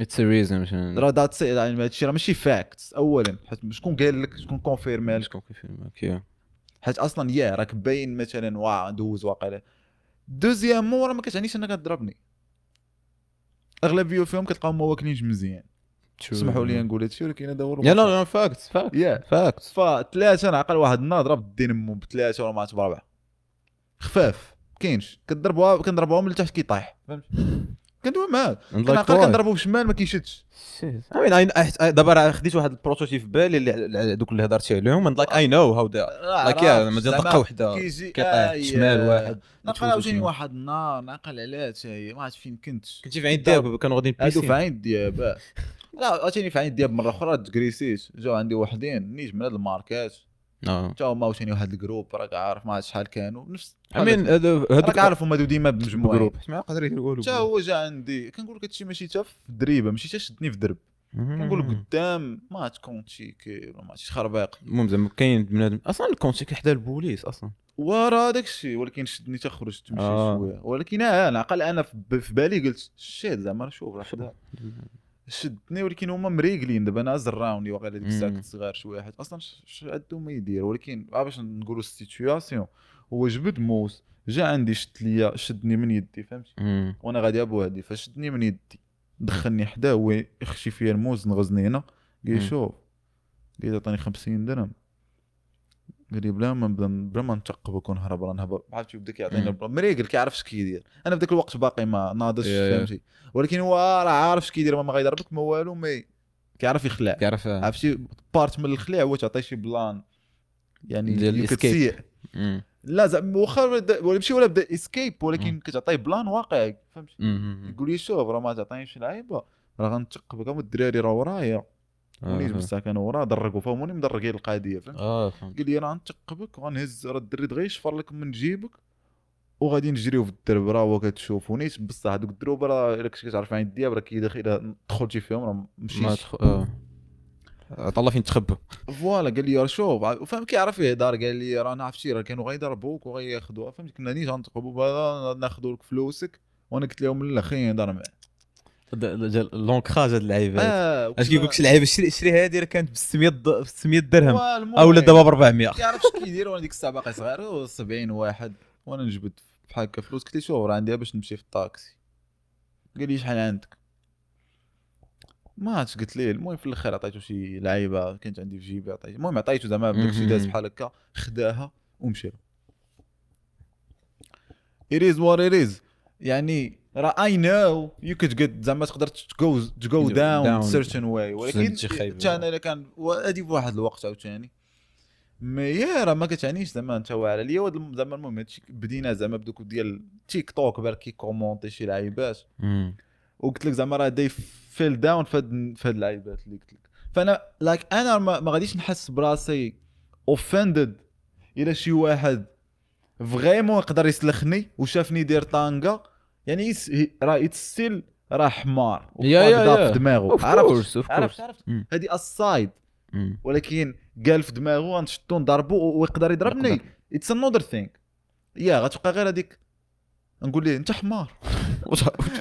it's a reason، راه that's، يعني هادشي راه ماشي fact اولا، حيت شكون قال لك، شكون confirm لك، شكون confirm لك، حيت اصلا يا راك باين مثلا وا دوز واقيلا. deuxièmement راه ما كتعنيش انك تضربني. اغلبية فيهم كتلقاهم ما واكلينش مزيان، سمحوا لي نقول هادشي ولكن هذا هو yeah no fact fact fact. فثلاثة نعقل واحد النهار ضرب دين امو بثلاثة ولا ما عرفت بربعه خفاف، كاينش كضربوها، كنضربوها من التحت كيطيح، فهمت؟ كندوي معاه كنعقل كنضربو بشمال ما كيشدش. I mean دابا راه خديت واحد ال prototype في بالي اللي دوك اللي هضرتي عليهم، and like I know how they like yeah ما دقه وحده كيطيح شمال واحد. نعقل عاوتاني واحد النهار نعقل عليها حتى هي، ما عرفت فين كنتي في عين دياب، كانوا غاديين هادو في عين دياب، لا عاوتاني في عين دياب مرة اخرى تكريسيت، جاو عندي وحدين نيت من هاد الماركات حتى هما عاوتاني واحد ال groupe راك عارف ما عرفت شحال كانوا نفس I mean هادوك عارف هما ديما بمجموعه groupe ما يقدر يدير والو. حتى هو جا عندي كنقول لك هادشي ماشي حتى في الدريبه، ماشي حتى شدني في درب، كنقول لك قدام ما تكونتيكي ولا ما عرفتش خربيق. المهم زعما كاين بنادم اصلا الكونتيكي حدا البوليس اصلا ورا داك الشيء، ولكن شدني حتى خرجت تمشي شوية، ولكن انا عقل انا في بالي قلت shit زعما شوف راه حدا شدني، ولكن هما مريقلين. دابا انا زراوني واقيلا ديك الساعة كنت صغير شوية، حيت اصلا عندهم ما يدير، ولكن باش نقولوا ال situation هو جبد موس جا عندي شد ليا، شدني من يدي، فهمتي، وانا غادي بوحدي، فشدني من يدي دخلني حداه، هو يخشي فيا الموس نغزني هنا، قال لي شوف، قال لي عطاني 50 درهم، قال لي بلا ما نبدا بلا ما نتقبك ونهرب راه نهبط، عرفتي، بدا كيعطيني مريقل كيعرف اش كيدير. انا في ذاك الوقت باقي ما ناضش، فهمتي، ولكن هو راه عارف اش كيدير، ما غيضربك ما والو، mais كيعرف يخلع، كيعرف عرفتي part من الخلع هو تعطي شي plan يعني كتسيء، لا زعما واخا ولا ماشي ولا بدا escape، ولكن كتعطيه plan واقعي، فهمتي. يقول لي شوف راه ما تعطينيش لعيبة راه غنتقبك، هما الدراري راه ورايا ونيت بصح كانوا ورا درقوا، فهموني مدرقين القضية، فهمت؟ قال لي راه غنتقبك وغنهز راه الدري دغيا يشفر لك من جيبك وغادي نجريو في الدرب، راه هو كتشوف ونيت بصح هذوك الدروب راه الا كنتي كتعرف عين الدياب راه كيدخل، الا دخلتي فيهم راه مشيت طلع فين تخبى voilà. قال لي راه شوف، فهم كيعرف يهضر، قال لي راه انا عرفتي راه كانوا غيضربوك وغياخذوها، فهمت، كنا نيت غنتقبوا ناخذوا لك فلوسك، وانا قلت لهم لا خليني نهضر معاه. l'ancrage هاد اللعيبات اش كيقول لك شي لعيبة شري هادي راه كانت ب 600 درهم او لا دابا ب 400، كيعرف اش كيدير. وانا ديك الساعة باقي صغير 70 واحد، وانا نجبد بحال هكا فلوس، قلت له شوف راه عندي باش نمشي في الطاكسي، قال لي شحال عندك، ما عرفتش قلت ليه. المهم في الاخر عطيته شي لعيبة كانت عندي في جيبي، عطيته، المهم عطيته زعما داكشي داز بحال هكا، خداها ومشى. it is what it is، يعني راه I know you could get زعما تقدر to go down certain way، ولكن حتى انا الا كان هادي بواحد الوقت عاوتاني mais راه ما كتعنيش زعما انت واعر عليا زعما. المهم هادشي بدينا زعما بدوك ديال تيك توك بارك كي commenter شي لعيبات، وقلت لك زعما راه they fell down في هاد اللعيبات اللي قلت لك. فانا like انا ما غاديش نحس براسي offended الى شي واحد vraiment يقدر يسلخني وشافني داير طانقه، يعني راه it's still راه حمار وفاقد في دماغه، عرفت عرفت هذه aside، ولكن قال في دماغه غنشدو نضربو ويقدر يضربني، it's another thing. yeah غتبقى غير هذيك نقول ليه انت حمار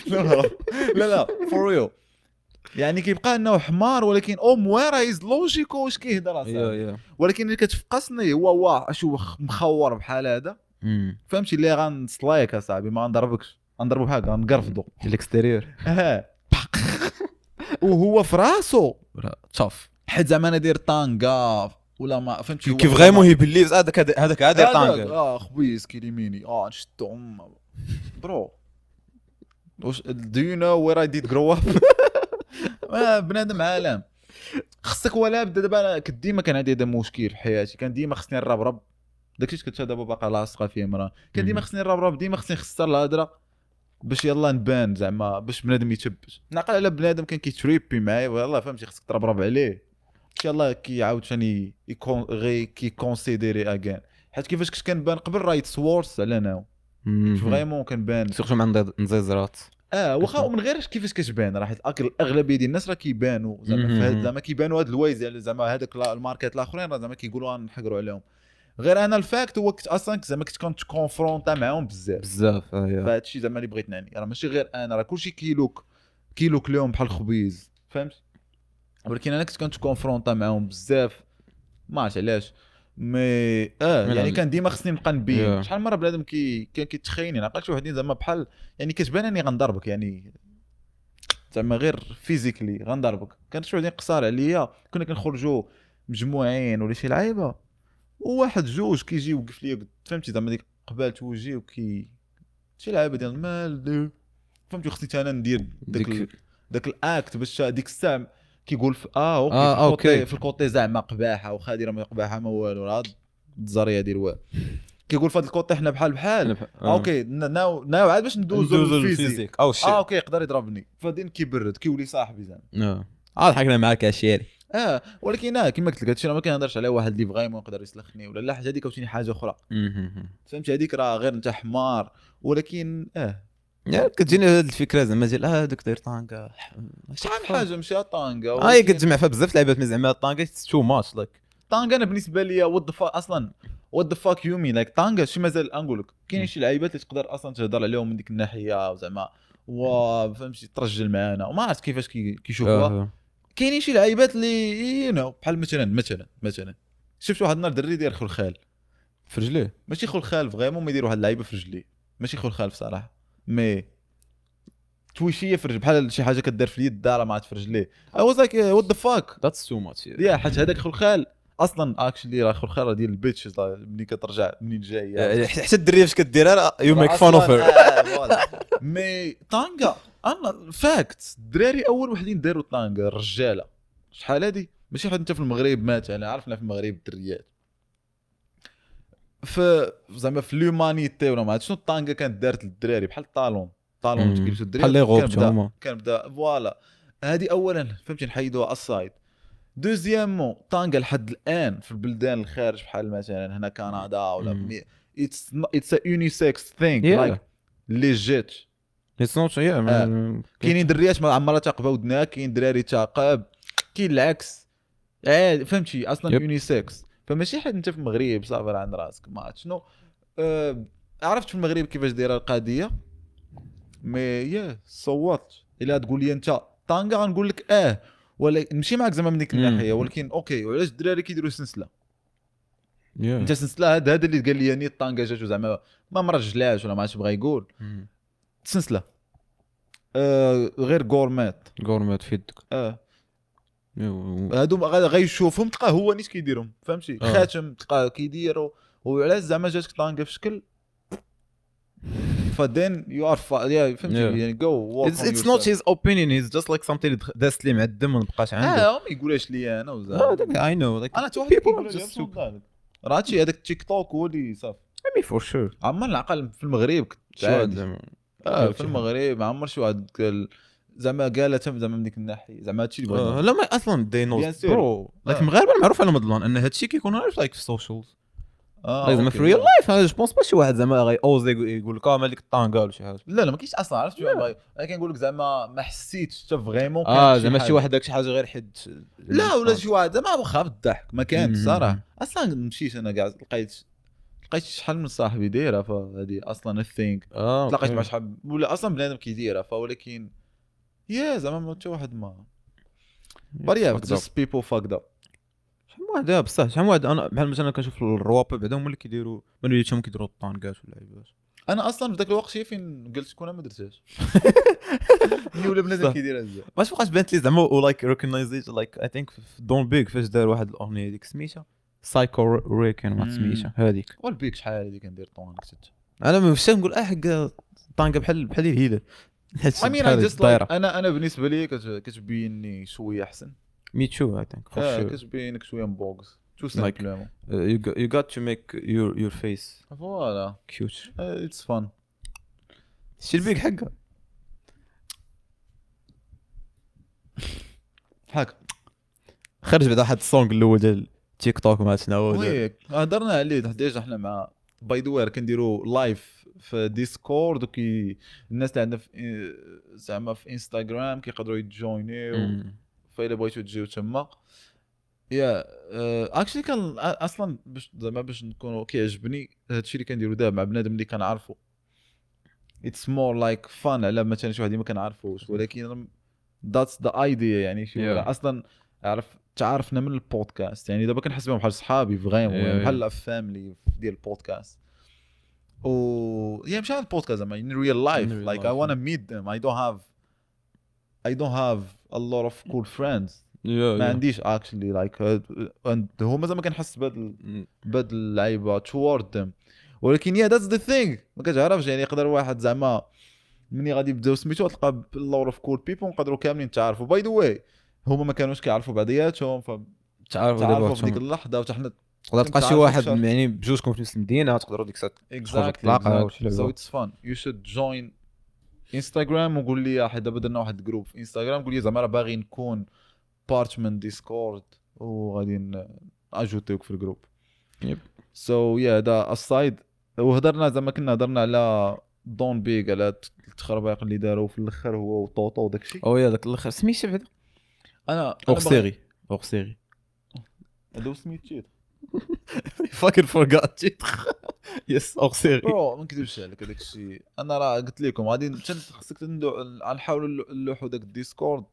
لا لا لا for real، يعني كيبقى انه حمار، ولكن au moins راه is logique واش كيهضر اصاحبي. ولكن اللي كتفقصني هو واه شو مخور بحال هذا، فهمتي، اللي غنصلايك اصاحبي ما غنضربكش، غنضربو بحال غنقرفضو ال extérieur وهو في راسو tough، حيت زعما انا داير طانكا ولا ما فهمتي، كيف vraiment he believes هذاك عاد داير طانكا، خبيز كيليميني نشدو bro do you know where I did grow up؟ بنادم عالم خصك ولا بدا. دابا كنت ديما كان عندي هذا مشكل في حياتي، كان ديما خصني نربرب داكشي كنت دابا باقا لاصقه فيه مرة كان ديما خصني نربرب، ديما خصني نخسر الهضرة باش يلا نبان زعما باش بنادم يتبت. نعقل على بنادم كان كيتريبي معايا والله فهمتي، خصك تربرب عليه باش يلا كيعاود ثاني يكون غي كي considérer again، حيت كيفاش كنت كنبان قبل راه it's worse على now vraiment كنبان surtout مع نزيزرات. واخا ومن غير كيفاش كتبان راه حيت الاغلبية ديال الناس راه كيبانوا زعما زعما كيبانوا هاد الوايز يعني زعما هذاك الماركات الاخرين راه زعما كيقولوا نحقروا عليهم. غير انا ال fact هو كنت اصلا زعما كنت كنت confronté معاهم بزاف بزاف. فهاد الشيء زعما اللي بغيت نعني راه ماشي غير انا، راه كلشي كيلوك لهم بحال الخبيز فهمت، ولكن انا كنت confronté معاهم بزاف ما عرفت علاش. mais يعني كان ديما خصني نبقى نبين. شحال مرة بنادم كان كيتخيني نعقل شي وحدين زعما بحال يعني كتبان اني غنضربك يعني زعما غير physically غنضربك. كان شي وحدين قصار عليا كنا كنخرجوا مجموعين ولا شي لعيبة وواحد جوج كيجي يوقف ليا فهمتي زعما ديك قبالت وجهي وكي شي لعيبة ديال مال فهمتي، خصني انا ندير داك ال act باش ديك الساعة كيقول في okay في ال côté زعما قباحه واخا دايرة ما قباحه ما والو راه الزريه ديال والو كيقول في هذا ال côté حنا بحال بحال okay now عاد باش ندوزو لل physique او شي okay يقدر يضربني فدين كيبرد كيولي صاحبي زعما. ضحكنا معاك اشيري. ولكن كما قلت لك هادشي راه ما كنهضرش على واحد اللي vraiment يقدر يسلخني ولا لا، حاجة هذيك عاوتاني حاجة اخرى فهمتي، هذيك راه غير انت حمار. ولكن كتجيني هاد الفكرة زعما ديال هذاك داير طانكا شحال من حاجة ماشي طانكا كتجمع فيها بزاف لعيبات mais زعما طانكا too much like طانكا. انا بالنسبة لي what the fuck اصلا what the fuck you mean like طانكا شي مازال نقول لك كاينين شي لعيبات اللي تقدر اصلا تهضر عليهم من ديك الناحية زعما و فهمتي ترجل معانا وما عرفت كيفاش كيشوفوها. كاينين شي لعيبات اللي you know بحال مثلا مثلا شفت واحد النهار دري داير خلخال في رجليه، ماشي خلخال vraiment ما يدير واحد اللعيبة في رجليه، ماشي خلخال بصراحة mais تويشيه في رجل بحال شي حاجة كدير في اليد راه ما عاد في رجليه. I was like what the fuck that's too much. yeah حيت هذاك خلخال اصلا actually راه خلخال ديال ال bitch ملي كترجع منين جاية حتى الدريه فاش كديرها you make fun of her. mais طانكا انا fact الدراري اول وحدين داروا طانكا الرجالة شحال هادي ماشي حد انت في المغرب مثلا عرفنا في المغرب الدريات في زعما في l'humanité ولا ما عرفت شنو الطانكا كانت دارت للدراري بحال ال talon كيلبسوا الدراري بحال les robes هما كان بدا voilà. هذه اولا فهمتي نحيدوها aside. deuxièmement طانكا لحد الان في البلدان الخارج بحال مثلا هنا كندا ولا it's unisex thing like legit it's not. كاينين دريات ما عمرها تاقبه ودنها، كاين دراري تاقب، كاين العكس فهمتي اصلا unisex. فماشي حيت انت في المغرب صافي راه عند راسك ما عرفت شنو. عرفت في المغرب كيفاش دايرة القضية mais yeah صوت الا تقول لي انت طانكا غنقول لك ولا نمشي معاك زعما من ديك الناحية، ولكن okay وعلاش الدراري كيديروا سلسلة؟ انت سلسلة هذا اللي قال لي ني الطانكا جاتو زعما ما مرجلاش ولا ما عرفتش بغا يقول سلسلة غير gourmette في يدك. هادو غيشوفهم تلقاه هو نيت كيديرهم فهمتي. خاتم تلقاه كيديرو وعلاش زعما جاتك طانكا في شكل ف then you are فهمتي يعني go it's not his opinion he's just like something داس لي مع الدم ما بقاش عنده. ما يقولهاش لي انا وزعما I know like انا حتى واحد كيقول لي راه هادشي هذاك التيك توك هو اللي صافي mais for sure. عمر العقل في المغرب كنت في المغرب عمر شي واحد قال زعما قالها زعما من ديك الناحية زعما هادشي اللي بغيت. لا ما اصلا they know bro like المغاربة معروف على مضلون ان هادشي كيكون غير like في ال socials زعما في real life انا je pense pas شي واحد زعما غي oser يقول لك مالك الطانكا ولا شي حاجة. لا ما كاينش اصلا عرفت. انا كنقول لك زعما ما حسيتش حتى vraiment زعما شي واحد داك شي حاجة غير حد لا ولا شي واحد زعما واخا بالضحك ما كانش صراحة اصلا. مشيت انا كاع لقيت شحال من صاحبي دايرة فهذه اصلا ال thing تلاقيت مع شحال ولا اصلا بنادم كيديرها فولكن yeah زعما ما حتى واحد ما but yeah just people fucked up. شحال من واحد بصح شحال من واحد انا بحال مثلا كنشوف الرواب بعدا هما اللي كيديروا من وليتهم كيديروا الطانكات ولا لعيبات. انا اصلا في ذاك الوقت شي فين قلت كون ما درتهاش ملي ولا بنادم كيديرها بزاف ما بقاش بانت لي زعما و like recognize like I think دون بيك فاش دار واحد الاغنية ديك سميتها سايكو ريكن ما سميتها هذيك والبيك شحال هذيك كندير طونك انا مش نقول حق طانكا بحال الهلال. I mean I just like انا بالنسبة لي كتبيني شوية احسن me too I think كتبينك شوية مبوكس. tout simplement. You got to make your face voilà cute. it's fun. شتي البيك حقه حق خرج بعدا واحد ال song الاول ديال تيك توك ما شنو oui هضرنا عليه déjà حنا مع by the way كنديروا live في ديسكورد وكي الناس اللي عندنا في زعما في انستغرام كيقدروا يتجوينيو، فإلا بغيتو تجيو تما. yeah actually كان اصلا باش زعما باش نكونوا كيعجبني هادشي اللي كنديرو دابا مع بنادم اللي كنعرفو، it's more like fun على مثلا شي واحد اللي ما كنعرفوش، ولكن that's the idea يعني شي اصلا عرف تعرفنا من البودكاست، يعني دابا كنحس بهم بحال صحابي vraiment بحال family ديال البودكاست. و yeah مش على البودكاست زعما in real life like I wanna meet them. I don't have a lot of cool friends. ما عنديش actually like and هما زعما كنحس بهاد اللعيبة toward them، ولكن yeah that's the thing ما كتعرفش يعني يقدر واحد زعما مني غادي يبداو سميتو تلقى a lot of cool people نقدروا كاملين نتعرفوا. by the way هما ما كانوش كيعرفوا بعضياتهم فتعرفوا دابا في ديك اللحظة، وحتى حنا تقدر تلقى شي واحد يعني بجوجكم في نفس المدينة تقدروا ديك الساعة تلاقاو. so it's fun you should join انستغرام وقول لي حيت دابا درنا واحد group في انستغرام، قول لي زعما راه باغي نكون part من ديسكورد وغادي اجوتيوك في ال group. so yeah هذا aside. وهضرنا زعما كنا هضرنا على دون بيغ على التخربيق اللي داروا في الاخر هو وطوطو وداك الشيء. oh yeah داك الاخر سميتو بعدا انا hors série هذا سميتو fucking forgot it. yes hors série. bro ما نكذبش عليك هذاك الشيء انا راه قلت لكم غادي خصك نحاولوا نلوحوا داك الديسكورد.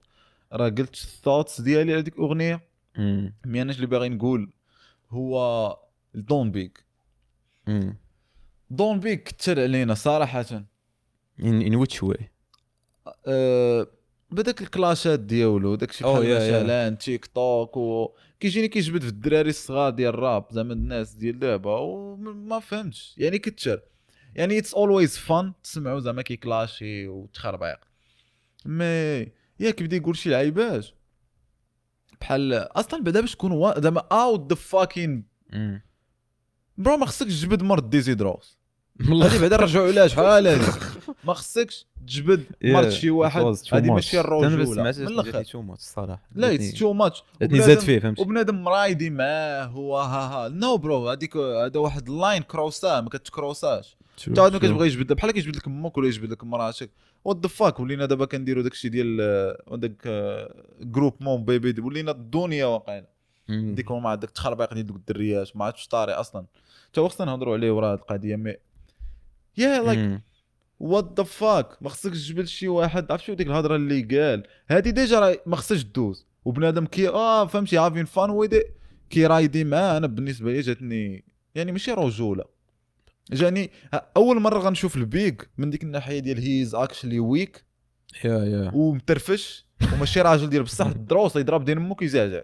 راه قلت ال thoughts ديالي على ديك الاغنية، mais انا اللي باغي نقول هو دون بيغ. دون بيغ كثر علينا صراحة. in which way؟ بداك الكلاشات ديالو داك الشيء بحال مثلا تيك توك وكيجيني كيجبد في الدراري الصغار ديال الراب زعما الناس ديال دابا وما فهمتش يعني كثر. يعني it's always fun تسمعوا زعما كيكلاشي وتخربيق، mais يا كيبدا يقول شي لعيبات بحال اصلا بعدا باش تكون زعما out the fucking bro ما خصكش تجبد مرد ديزيدروس هادي بعدا رجعوا علاش شحال هادي ما خصكش تجبد مرد شي واحد، هادي ماشي الرجولة من الاخر. too much الصراحة لا it's too much زاد فيه فهمتي، وبنادم مرايدي معاه هو ها ها no bro هذيك هذا واحد ال line كروسا ما كتكروساش حتى واحد ما كتبغي يجبد بحال كيجبد لك امك ولا يجبد لك مراتك what the fuck. ولينا دابا كنديروا داكشي ديال داك groupe mon bébé، ولينا الدنيا واقعنا ديك مع داك التخربيق ديال دوك الدريات ما عرفتش طاري اصلا حتى هو خصنا نهضروا عليه ورا هاد القضية. mais yeah like what the fuck ما خصكش تجبد شي واحد عرفتي ديك الهضرة اللي قال هادي déjà راه ما خصهاش دوز، وبنادم كي فهمتي having fun with it كي رايدي معاه. انا بالنسبة لي جاتني يعني ماشي رجوله، جاني اول مرة غنشوف البيغ من ديك الناحية ديال he's actually weak yeah ومترفش وماشي راجل ديال بصح الدروس يضرب دين امك يزعزع.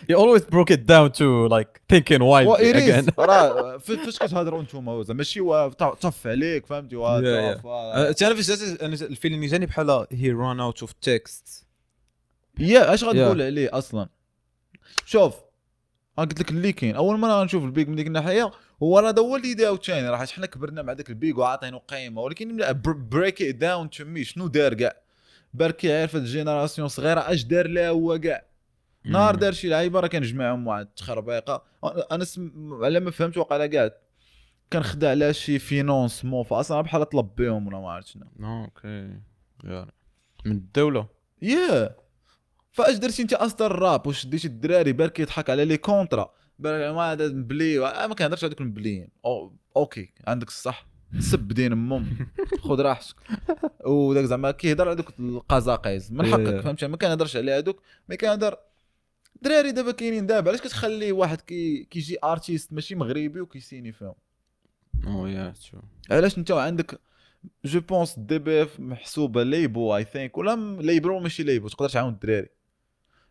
You always broke it down to like thinking wide again. راه فاش كتهضروا نتوما زعما ماشي طف عليك فهمتي. انا فاش انا ال feeling جاني بحال he run out of text. yeah اش غتقول عليه اصلا؟ شوف انا قلت لك اللي كاين اول مرة غنشوف البيغ من ديك الناحية هو راه هذا هو اللي داو ثاني، راه حنا كبرنا مع داك البيغ وعاطينو قيمة، ولكن break it down to me شنو دار كاع بركي عارف ال génération صغيرة اش دار لها هو كاع نهار دار شي لعيبة راه كنجمعهم واحد التخربيقه. انا على ما فهمت وقع كاع كان خدا على شي financement فاصلا بحال طلب بهم ولا ما عرفت شنو. okay من الدولة yeah فاش درتي انت اصلا الراب واش ديتي الدراري بالك يضحك على les contrats بالك ما هذا مبلي ما كنهضرش على دوك المبليين. okay عندك الصح سب دين امهم خذ راحتك وداك زعما كيهضر على دوك القزاقيز من حقك فهمتي، ما كنهضرش على هذوك mais كنهضر دراري دابا كاينين دابا. علاش كتخلي واحد كيجي artiste ماشي مغربي وكيسيني فيهم؟ oh yeah true. علاش انت عندك je pense DBF محسوبة label I think ولا label ماشي label تقدر تعاون الدراري.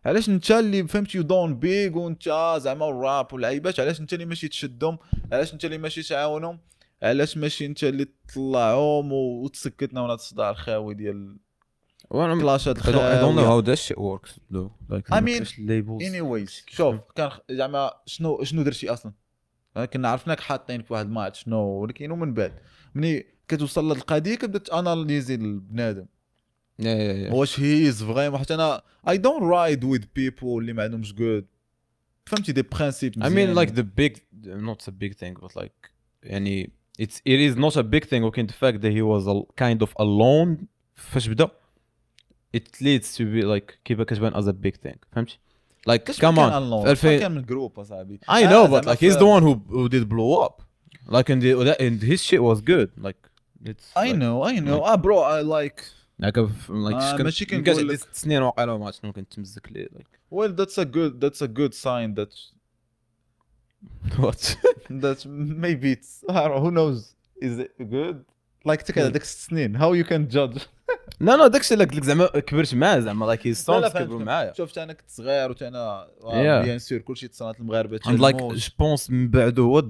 علاش انت اللي فهمتي دون بيغ وانت زعما الراب واللعيبات، علاش انت اللي ماشي تشدهم؟ علاش انت اللي ماشي تعاونهم؟ علاش ماشي انت اللي تطلعهم وتسكتنا من هذا الصداع الخاوي ديال كلاشات I don't know how that shit works though. Like I mean, anyways شوف كان زعما شنو درتي اصلا، كنا عرفناك حاطين في واحد ما عرفت شنو، ولكن ومن بعد ملي كتوصل لهاد القضية كتبدا ت analyser البنادم واش he is vraiment. حيت انا I don't ride with people اللي ما عندهمش good فهمتي des principes. I mean like the big not a big thing but like يعني it is not a big thing ولكن the fact that he was a kind of alone فاش بدا it leads to be like كيف كتبان as a big thing فهمتي like come on في كان من group اصاحبي I know but like he's the one who did blow up like and his shit was good like it's I know I know bro I like like ماشي كنقول لك 6 سنين واقيلا ما عرفت شنو كنتمزك ليه like well that's a good sign that what that maybe it's who knows is it good like تك هذاك 6 سنين how you can judge. لا لا داكشي اللي قلت لك زعما كبرت معاه زعما like his songs كبروا معايا. شفت انا كنت صغير وتا انا bien sûr كلشي تصنات المغاربة and like je pense من بعد هو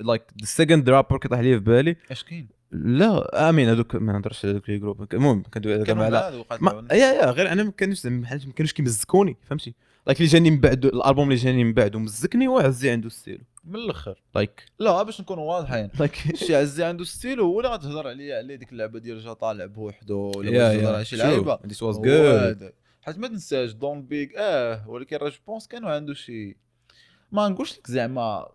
like the second rapper كيطيح لي في بالي اش كاين. لا امين هذوك ما نهضرش على دوك les groupes، المهم كندوي على yeah غير انا ما كانوش زعما ما كانوش كيمزكوني فهمتي like اللي جاني من بعد الالبوم اللي جاني من بعد ومزكني هو عزي عنده ستيلو من الاخر like لا باش نكونوا واضحين like شي عزي عنده ستيلو هو اللي غتهضر عليه ديك اللعبة ديال جا طالع بوحدو ولا تهضر على شي لعيبة this was good. حيت ما تنساش دون بيغ ولكن راه je pense كانوا عنده شي ما نقولش لك زعما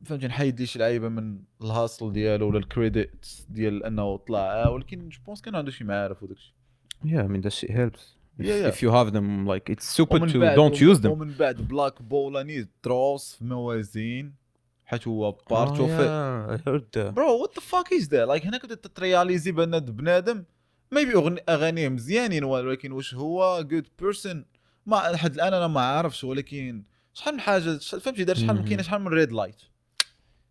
فهمتي نحيد لي شي لعيبة من ال hustle ديالو ولا ال credit ديال انه طلع، ولكن je pense كانوا عنده شي معارف وداك الشيء. Yeah I mean that shit helps if you have them like it's stupid to don't use them. ومن بعد بلاك بولاني دروس في موازين حيت هو part of bro what the fuck is that like هنا كنت ت réaliser بان بنادم maybe اغانيه مزيانين ولكن واش هو good person ما لحد الان انا ما عارفش. ولكن شحال من حاجة فهمتي دار شحال من كاين شحال من red light،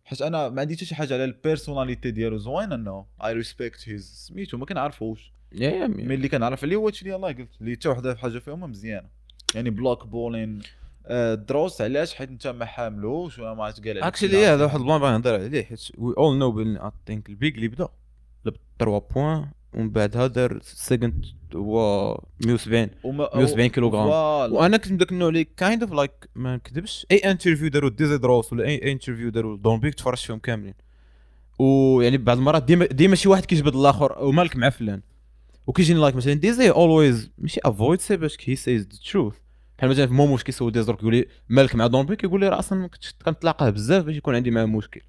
حيت انا ما عندي حتى شي حاجة على ال personnalité ديالو زوين انه I respect his سميتو ما كنعرفوش mais اللي كنعرف عليه هو هادشي اللي يلاه قلت اللي حتى وحده في حاجة فيهم مزيانه يعني بلوك بولين دروس. علاش؟ حيت انت ما حاملوش ولا ما عرفت قال عليك actually هذا واحد ال plan باغي نهضر عليه حيت we all know بان I think البيج اللي بدا لب 3 points ومن بعدها دار second هو 170 كيلوغرام. وانا كنت داك النوع اللي kind of like ما نكذبش اي interview داروا ديزي دروس ولا اي interview داروا دون بيك تفرجت فيهم كاملين، ويعني بعض المرات ديما شي واحد كيجبد الاخر ومالك مع فلان وكيجيني like مثلا ديزي always ماشي avoid say باش he says the truth. بحال مثلا في موموش كيسول ديزي كيقول لي مالك مع دون بيك كيقول لي راه اصلا ما كنتش كنتلاقاه بزاف باش يكون عندي معاه مشكل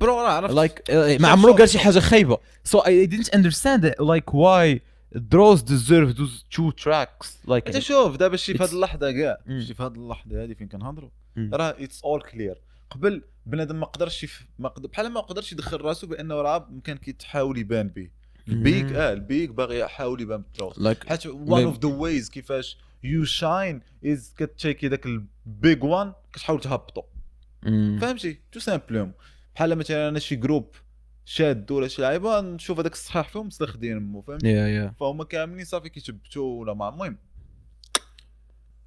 bro راه عرفت like ما عمرو قال شي حاجة خايبة. so I didn't understand like why دروس deserve those two tracks like انت شوف دابا شي في هذه اللحظة كاع شي في هذه اللحظة هذه فين كنهضروا راه it's all clear. قبل بنادم ما قدرش بحال ما قدرش يدخل راسو بانه راه كان كيتحاول يبان به البيك البيك باغي يحاول يبان بالدروس حيت one of the ways كيفاش you shine is كتشيكي داك ال big one كتحاول تهبطو فهمتي tout simplement. بحال مثلا انا شي groupe شاد ولا شي لعيبة نشوف هذاك الصحيح فيهم مستخدمين مو فهمتي فهم كاملين صافي كيتبتوا ولا مع المهم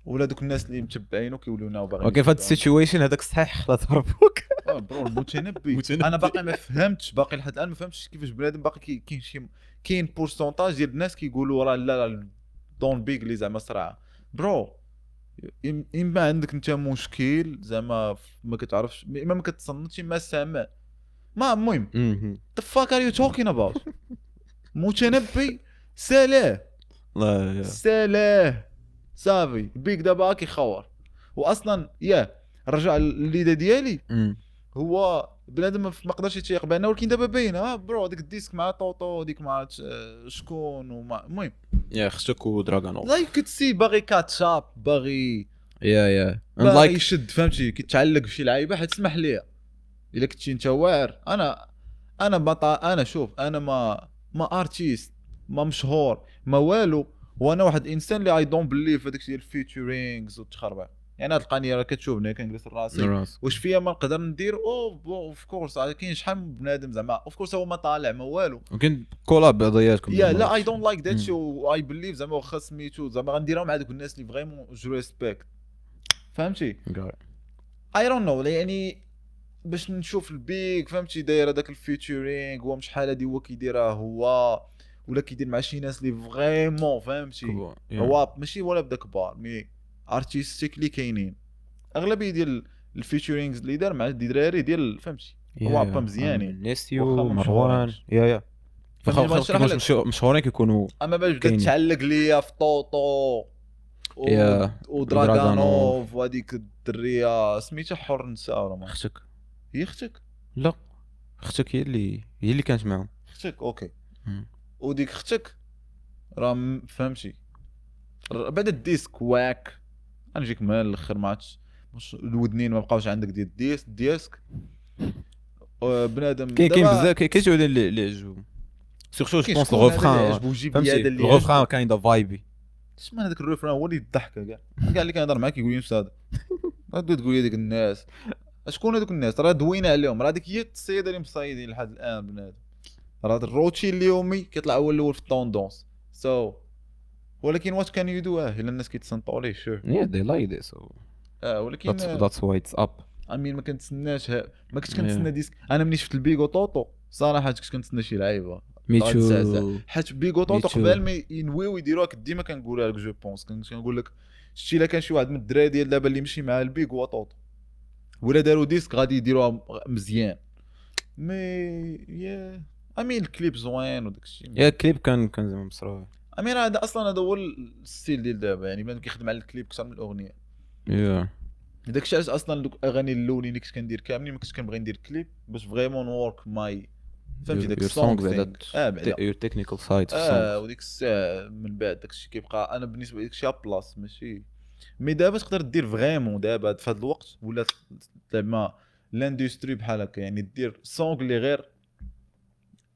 ولا دوك الناس اللي متبعينو كيوليو ناو باغيين okay في هاد ال situation هذاك الصحيح خلاص هربوك bro المتنبي. انا باقي ما فهمتش باقي لحد الان ما فهمتش كيفاش بنادم باقي كاين شي كاين pourcentage ديال الناس كيقولوا راه لا لا دون بيغ اللي زعما صراع bro. اما عندك انت مشكل زعما ما كتعرفش اما ما كتصنتش ما سامع ما المهم the fuck are you talking about متنبي سالاه لا سالاه صافي بيك دابا كيخور. واصلا يا رجع الليده ديالي هو بنادم ما قدرش يتيق بان ولكن دابا باين bro ديك ال disque مع طوطو ديك مع شكون ومع المهم يا خصك ودراغونوف like كتسي باغي catch up باغي yeah باغي يشد فهمتي كيتعلق بشي لعيبة حيت تسمح ليا الا كنتي انت واعر. انا انا شوف انا ما artiste ما مشهور ما والو، وانا واحد الانسان اللي I don't believe هذاك الشيء ديال ال featurings والتخربيق. يعني هاد القنيه راه كتشوفني كنجلس راسي واش فيا ما نقدر ندير of course كاين شحال من بنادم زعما of course هو ما طالع ما والو ممكن collab بعضياتكم yeah لا I don't like that shit I believe زعما واخا سميتو زعما غنديرها مع دوك الناس اللي vraiment je respecte فهمتي I don't know. يعني باش نشوف البيك فهمتي داير هذاك ال featuring هو شحال هادي هو كيديرها هو ولا كيدير مع شي ناس اللي vraiment فهمتي هو ماشي ولا بدا كبار mais artistique اللي كاينين. اغلبية ديال ال featurings اللي دار مع الدراري ديال فهمتي هو با مزيانين، نيسيو مروان yeah yeah مشهورين كيكونوا. اما باش بدات تعلق ليا في طوطو ودراغانوف وهذيك الدريه سميتها حر نساء ولا ما اختك، هي اختك؟ لا اختك هي اللي كانت معاهم. اختك okay. وديك اختك راه فهمتي بعد ال disque واك غنجيك من الاخر ما عرفتش الودنين ما بقاوش عندك ديال ال disque بنادم. كاين بزاف كاين شي وحدين اللي عجبهم surtout je pense ال refrain، فهمتي ال refrain kinda vibey. شمن هذاك ال refrain هو اللي يضحك كاع كاع اللي كنهضر معاك يقول لي نفس هذا. غادي تقول لي ديك الناس شكون هذوك الناس راه دوينا عليهم، راه ديك هي السيدة اللي مصايدين لحد الان بنادم. راه الروتين اليومي كيطلع هو الاول في ال tendance so ولكن what can you do الا الناس كيتصنتوا ليه sure yeah they like this ولكن that's why it's up. I mean ما كنتسناش، ما كنتش كنتسنى disque. انا ملي شفت البيغو طوطو صراحة كنت كنتسنى شي لعيبة me too، حيت بيغو طوطو قبل ما ينويو يديروها كنت ديما كنقولها لك je pense كنت كنقول لك شتي الا كان شي واحد من الدراري ديال دابا اللي مشي مع البيغو طوطو ولا داروا disque غادي يديروها مزيان. mais yeah I mean الكليب زوين وداك الشيء. yeah الكليب كان زعما مصروف. I mean هذا اصلا هذا هو ال style ديال دابا، يعني بنادم كيخدم على الكليب اكثر من الاغنية. yeah داك الشيء علاش اصلا دوك الاغاني الاولين اللي كنت كندير كاملين ما كنتش كنبغي ندير كليب باش vraiment work my فهمتي داك ال song بعدا your technical side وديك الساعة من بعد داك الشيء كيبقى انا بالنسبة لي داك الشيء plus ماشي. mais دابا تقدر دير vraiment دابا في هذا الوقت ولا زعما l'industrie بحال هكا، يعني دير song اللي غير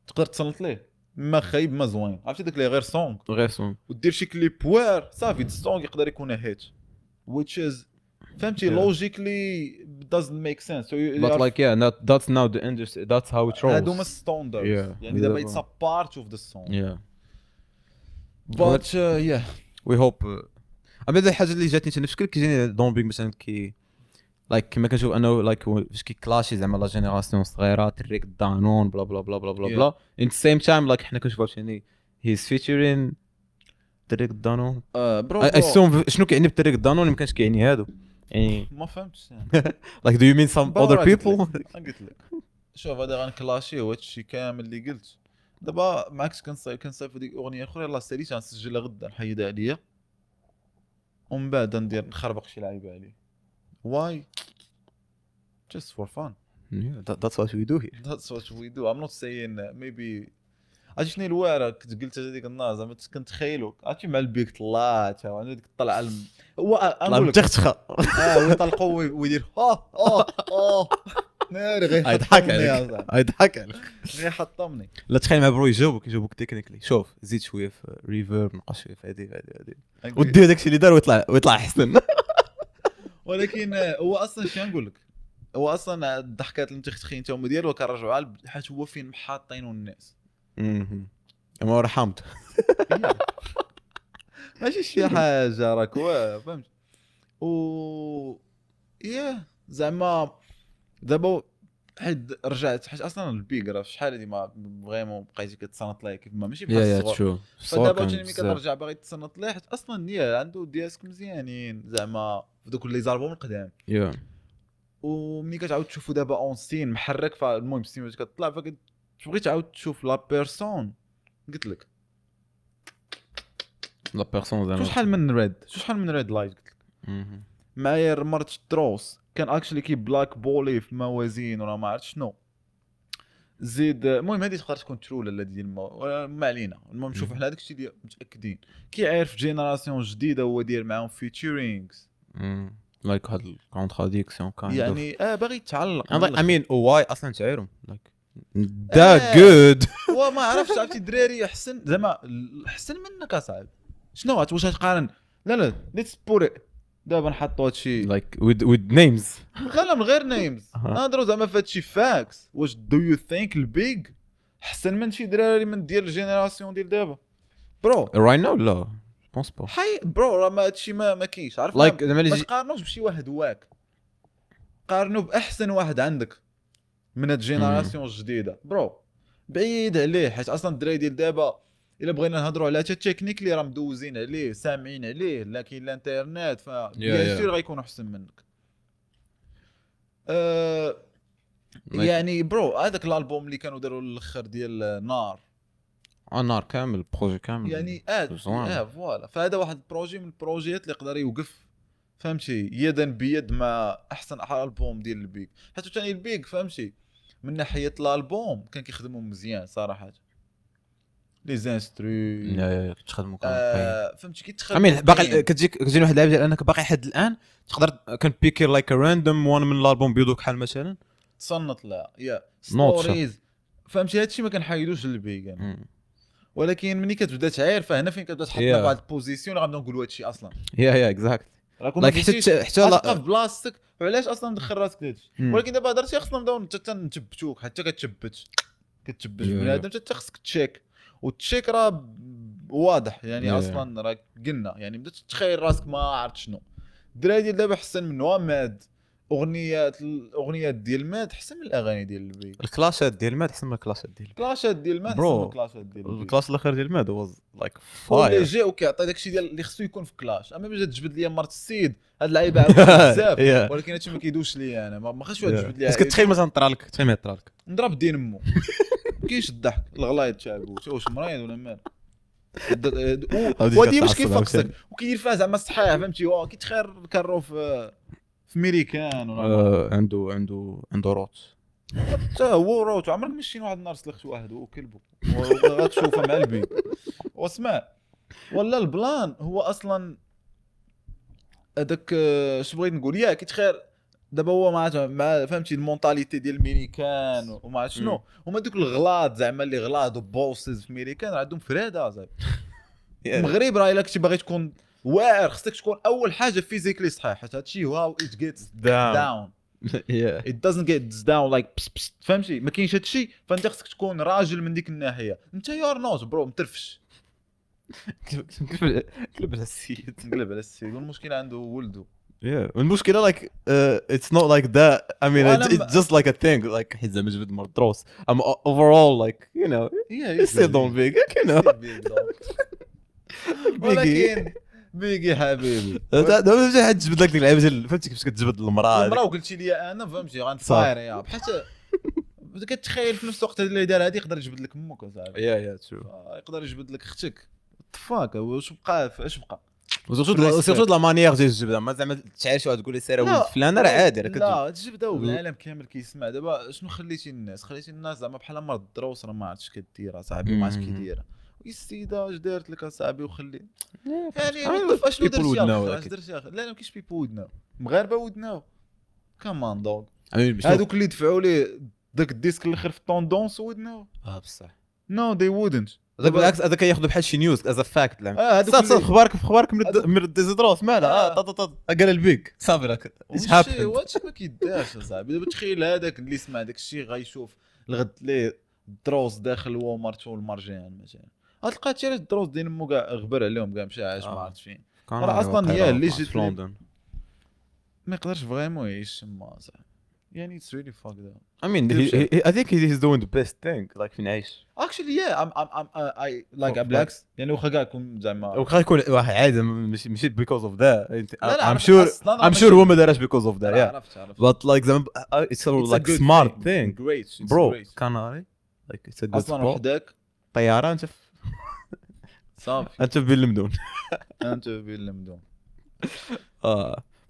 تقدر تصنت ليه ما خايب ما زوين، عرفتي داك اللي غير song غير song ودير شي كليب وار صافي ال song يقدر يكون hit which is فهمتي logically doesn't make sense so you but like yeah not, that's now the industry that's how it rolls. هادو هما standards يعني دابا it's a part of the song yeah but yeah we hope. اما الحاجة اللي جاتني انا في شكل كيجيني دومبينغ مثلا كي like كما كنشوف انه like فاش كيكلاشي زعما la génération الصغيرة تريك دانون bla bla bla bla bla bla in the same time like حنا كنشوفوا عاوتاني he's featuring تريك دانون bro I شنو كيعني بتريك دانون؟ ما كانش كيعني هادو يعني ما فهمتش like do you mean some other people. قلت لك شوف هذا غنكلاشي هو هادشي كامل اللي قلت دابا معاك. كنصايب هذيك اغنية اخرى يلاه ساليت غنسجلها غدا نحيدها عليا ومن بعد ندير نخربق شي لعيبة عليه. Why? Just for fun. Yeah, that's what we do here. That's what we do. I'm not saying maybe. عرفتي شنو الواره كنت قلت هذيك النهار زعما كنتخيلو عرفتي مع البيك طلعت عنده ديك الطلعة هو نقول لك تختخه ويطلقوا ويدير ناري غير يضحك عليك يضحك عليك غير حطمني. لا تخيل مع bro يجاوبك technically شوف زيد شوية في reverb نقص شوية في هذه هذه ودير داكشي اللي دار ويطلع احسن. ولكن هو اصلا شنو نقول لك، هو اصلا الضحكات اللي متختخين تا هما ديالو كنرجعوا على حيت هو فين محاطينو الناس. ما رحمت ماشي شي حاجة راك فهمت. و yeah زعما دابا حيت رجعت حيت اصلا البيغ راه شحال هادي ما vraiment بقيتي كتصنت ليه كيف ما ماشي بحال الصغر. فدابا عاوتاني ملي كترجع باغي تصنت ليه حيت اصلا yeah عنده disques مزيانين زعما في دوك les albums القدام. وملي كتعاود تشوفو دابا en scène محرك، فالمهم ال scène باش كتطلع فكتبغي تعاود تشوف la personne. قلت لك la personne زعما شحال من red شحال من red light قلت لك معايا مرت تروس كان actually كي blackball ي في موازين ولا ما عرفت شنو زيد. المهم هذه تقدر تكون true ولا ديال ما علينا. المهم شوف حنا هذاك الشيء ديال متاكدين كيعرف génération جديدة هو داير معاهم featurings like هاد ال contradiction كان يعني باغي يتعلق. I mean why اصلا تعيرهم like that good وما عرفتش عرفتي الدراري احسن زعما احسن منك اصاحبي. شنو واش تقارن؟ لا let's put دابا نحطوا هادشي like with names. لا من غير names نهضروا زعما في هادشي facts. واش do you think البيج احسن من شي دراري من ديال ال génération ديال دابا bro right now؟ لا pense pas حي bro راه ما هادشي ما كاينش. عرفت like ما تقارنوش بشي واحد واك، قارنوا باحسن واحد عندك من هاد ال génération الجديدة bro. بعيد عليه حيت اصلا الدراري ديال دابا الا بغينا نهضروا على حتى التكنيك اللي راه مدوزين عليه، سامعين عليه، لكن الانترنت ف bien sûr غيكونوا احسن منك. يعني bro هذاك الالبوم اللي كانوا داروا الاخر ديال نار، نار كامل، projet كامل يعني voilà. فهذا واحد ال projet من البروجيات اللي يقدر يوقف فهمتي يدا بيد مع احسن البوم ديال البيك. حتى ثاني البيك فهمتي من ناحية الالبوم كان كيخدموا مزيان صراحة، les instrus كتخدموا كامل فهمتي كيتخدم. باقي كتجيني واحد اللعيبة ديال انك باقي حد الان تقدر كان بيكي like random one من الالبوم بيضو كحال مثلا تصنت لا يا stories فهمتي. هادشي ما كنحيدوش للبيك يعني. ولكن ملي كتبدا تعاير فهنا فين كتبدا تحطنا في واحد ال position اللي غنبداو نقولوا هادشي اصلا. yeah exact like حتى في بلاصتك. وعلاش اصلا مدخل راسك لهادشي؟ ولكن دابا هضرتي خصنا نبداو نتبتوك حتى كتثبت بنادم حتى خصك تشيك، وال check راه واضح يعني. اصلا راه قلنا يعني بدات تتخيل راسك ما عرفت شنو. الدراري ديال دابا احسن منه ماد، اغنيات الاغنيات ديال ماد احسن من الاغاني ديال البيك. الكلاشات ديال ماد احسن من الكلاشات ديال الكلاشات ديال ماد احسن من الكلاشات ديال ال clash الاخر ديال ماد was like fire اللي جا وكيعطي داكشي ديال اللي خصو يكون في clash. اما باش تجبد لي مرت السيد هاد اللعيبة بزاف، ولكن هادشي ما كيدوش ليا انا، ما خاصش واحد تجبد لي. بس كتخيل مثلا طرالك، تخيل طرالك نضرب دين امو كاينش الضحك الغلايط تاع واش مريض ولا مال ودي مش كيفقسك وكيدير فيها زعما صحيح فهمتي. كيتخير كارو في ميريكان ولا عنده عنده روت حتى هو روت. عمرك مشينا واحد النهار سلخت واحد وكلبو غتشوفه مع البيت واسمع. ولا ال plan هو اصلا هذاك اش بغيت نقول يا كيتخير دابا هو مع فهمتي ال mentalité ديال الميريكان وما عرفت شنو هما دوك الغلاط زعما اللي غلاط و bosses في ميريكان عندهم فرادة زعما. المغرب راه الا كنتي باغي تكون واعر خصك تكون اول حاجة physically صحيح، حيت هادشي how it gets down it doesn't get down like فهمتي ما كاينش هادشي. فانت خصك تكون راجل من ديك الناحية. انت you're not bro مترفش. قلب على السيد، قلب على السيد. والمشكلة عنده ولده. Yeah, والمشكلة like it's not like that. I mean it's just like a thing like حيت زعما جبد مر دروس. I'm overall like you know yeah still don't big you know ولكن بيجي حبيبي دابا شي حد جبد لك ديك اللعيبة ديال فهمتي كيفاش كتجبد المراة المراة وقلتي لي انا فهمتي غنفاير يا بحال كتخيل في نفس الوقت اللي دار هذه يقدر يجبد لك امك اصاحبي. yeah true يقدر يجبد لك اختك. fuck واش بقى اش بقى surtout la manière ديال الجبده. ما زعما تعيش واحد تقول لي سير ولد فلان راه عادي راه لا تجبده والعالم كامل كيسمع. دابا شنو خليتي الناس؟ خليتي الناس زعما بحال مرض الدروس راه ما عرفتش كدير اصاحبي، ما عرفتش كيدير. السيدة اش دارت لك اصاحبي وخلي يعني اشنو درتي اش درتي؟ لا ما كاينش people would know. مغاربة would know come on dog. هذوك اللي دفعوا لي داك ال disque الاخر في ال tendance would know. بصح no they wouldn't. هذاك بالعكس هذاك ياخذ بحال شي news as a fact. صافي اخبارك في اخبارك من ديزيدروس مالها قال البيك صافي راك هادشي ما كيدارش اصاحبي. دابا تخيل هذاك اللي سمع داك الشيء غيشوف الغد ليه الدروس داخل هو ومرته والمرجان مثلا، غتلقى هادشي علاش الدروس ديال مو كاع غبر عليهم كاع مشى عاش ما عرفت فين. راه اصلا هي اللي جات في لندن ما يقدرش vraiment يعيش تما صاحبي. يعني it's really fucked up. I mean I think he's doing the best thing like فين عايش actually yeah I'm I like بالعكس يعني واخا كاع يكون زعما واخا يكون واحد عادي ماشي because of that. I'm sure هو ما دارش because of that. yeah but like زعما it's a like smart thing great bro Canary like it's a good اصلا وحدك طيارة انت صافي انت بين المدن انت بين المدن.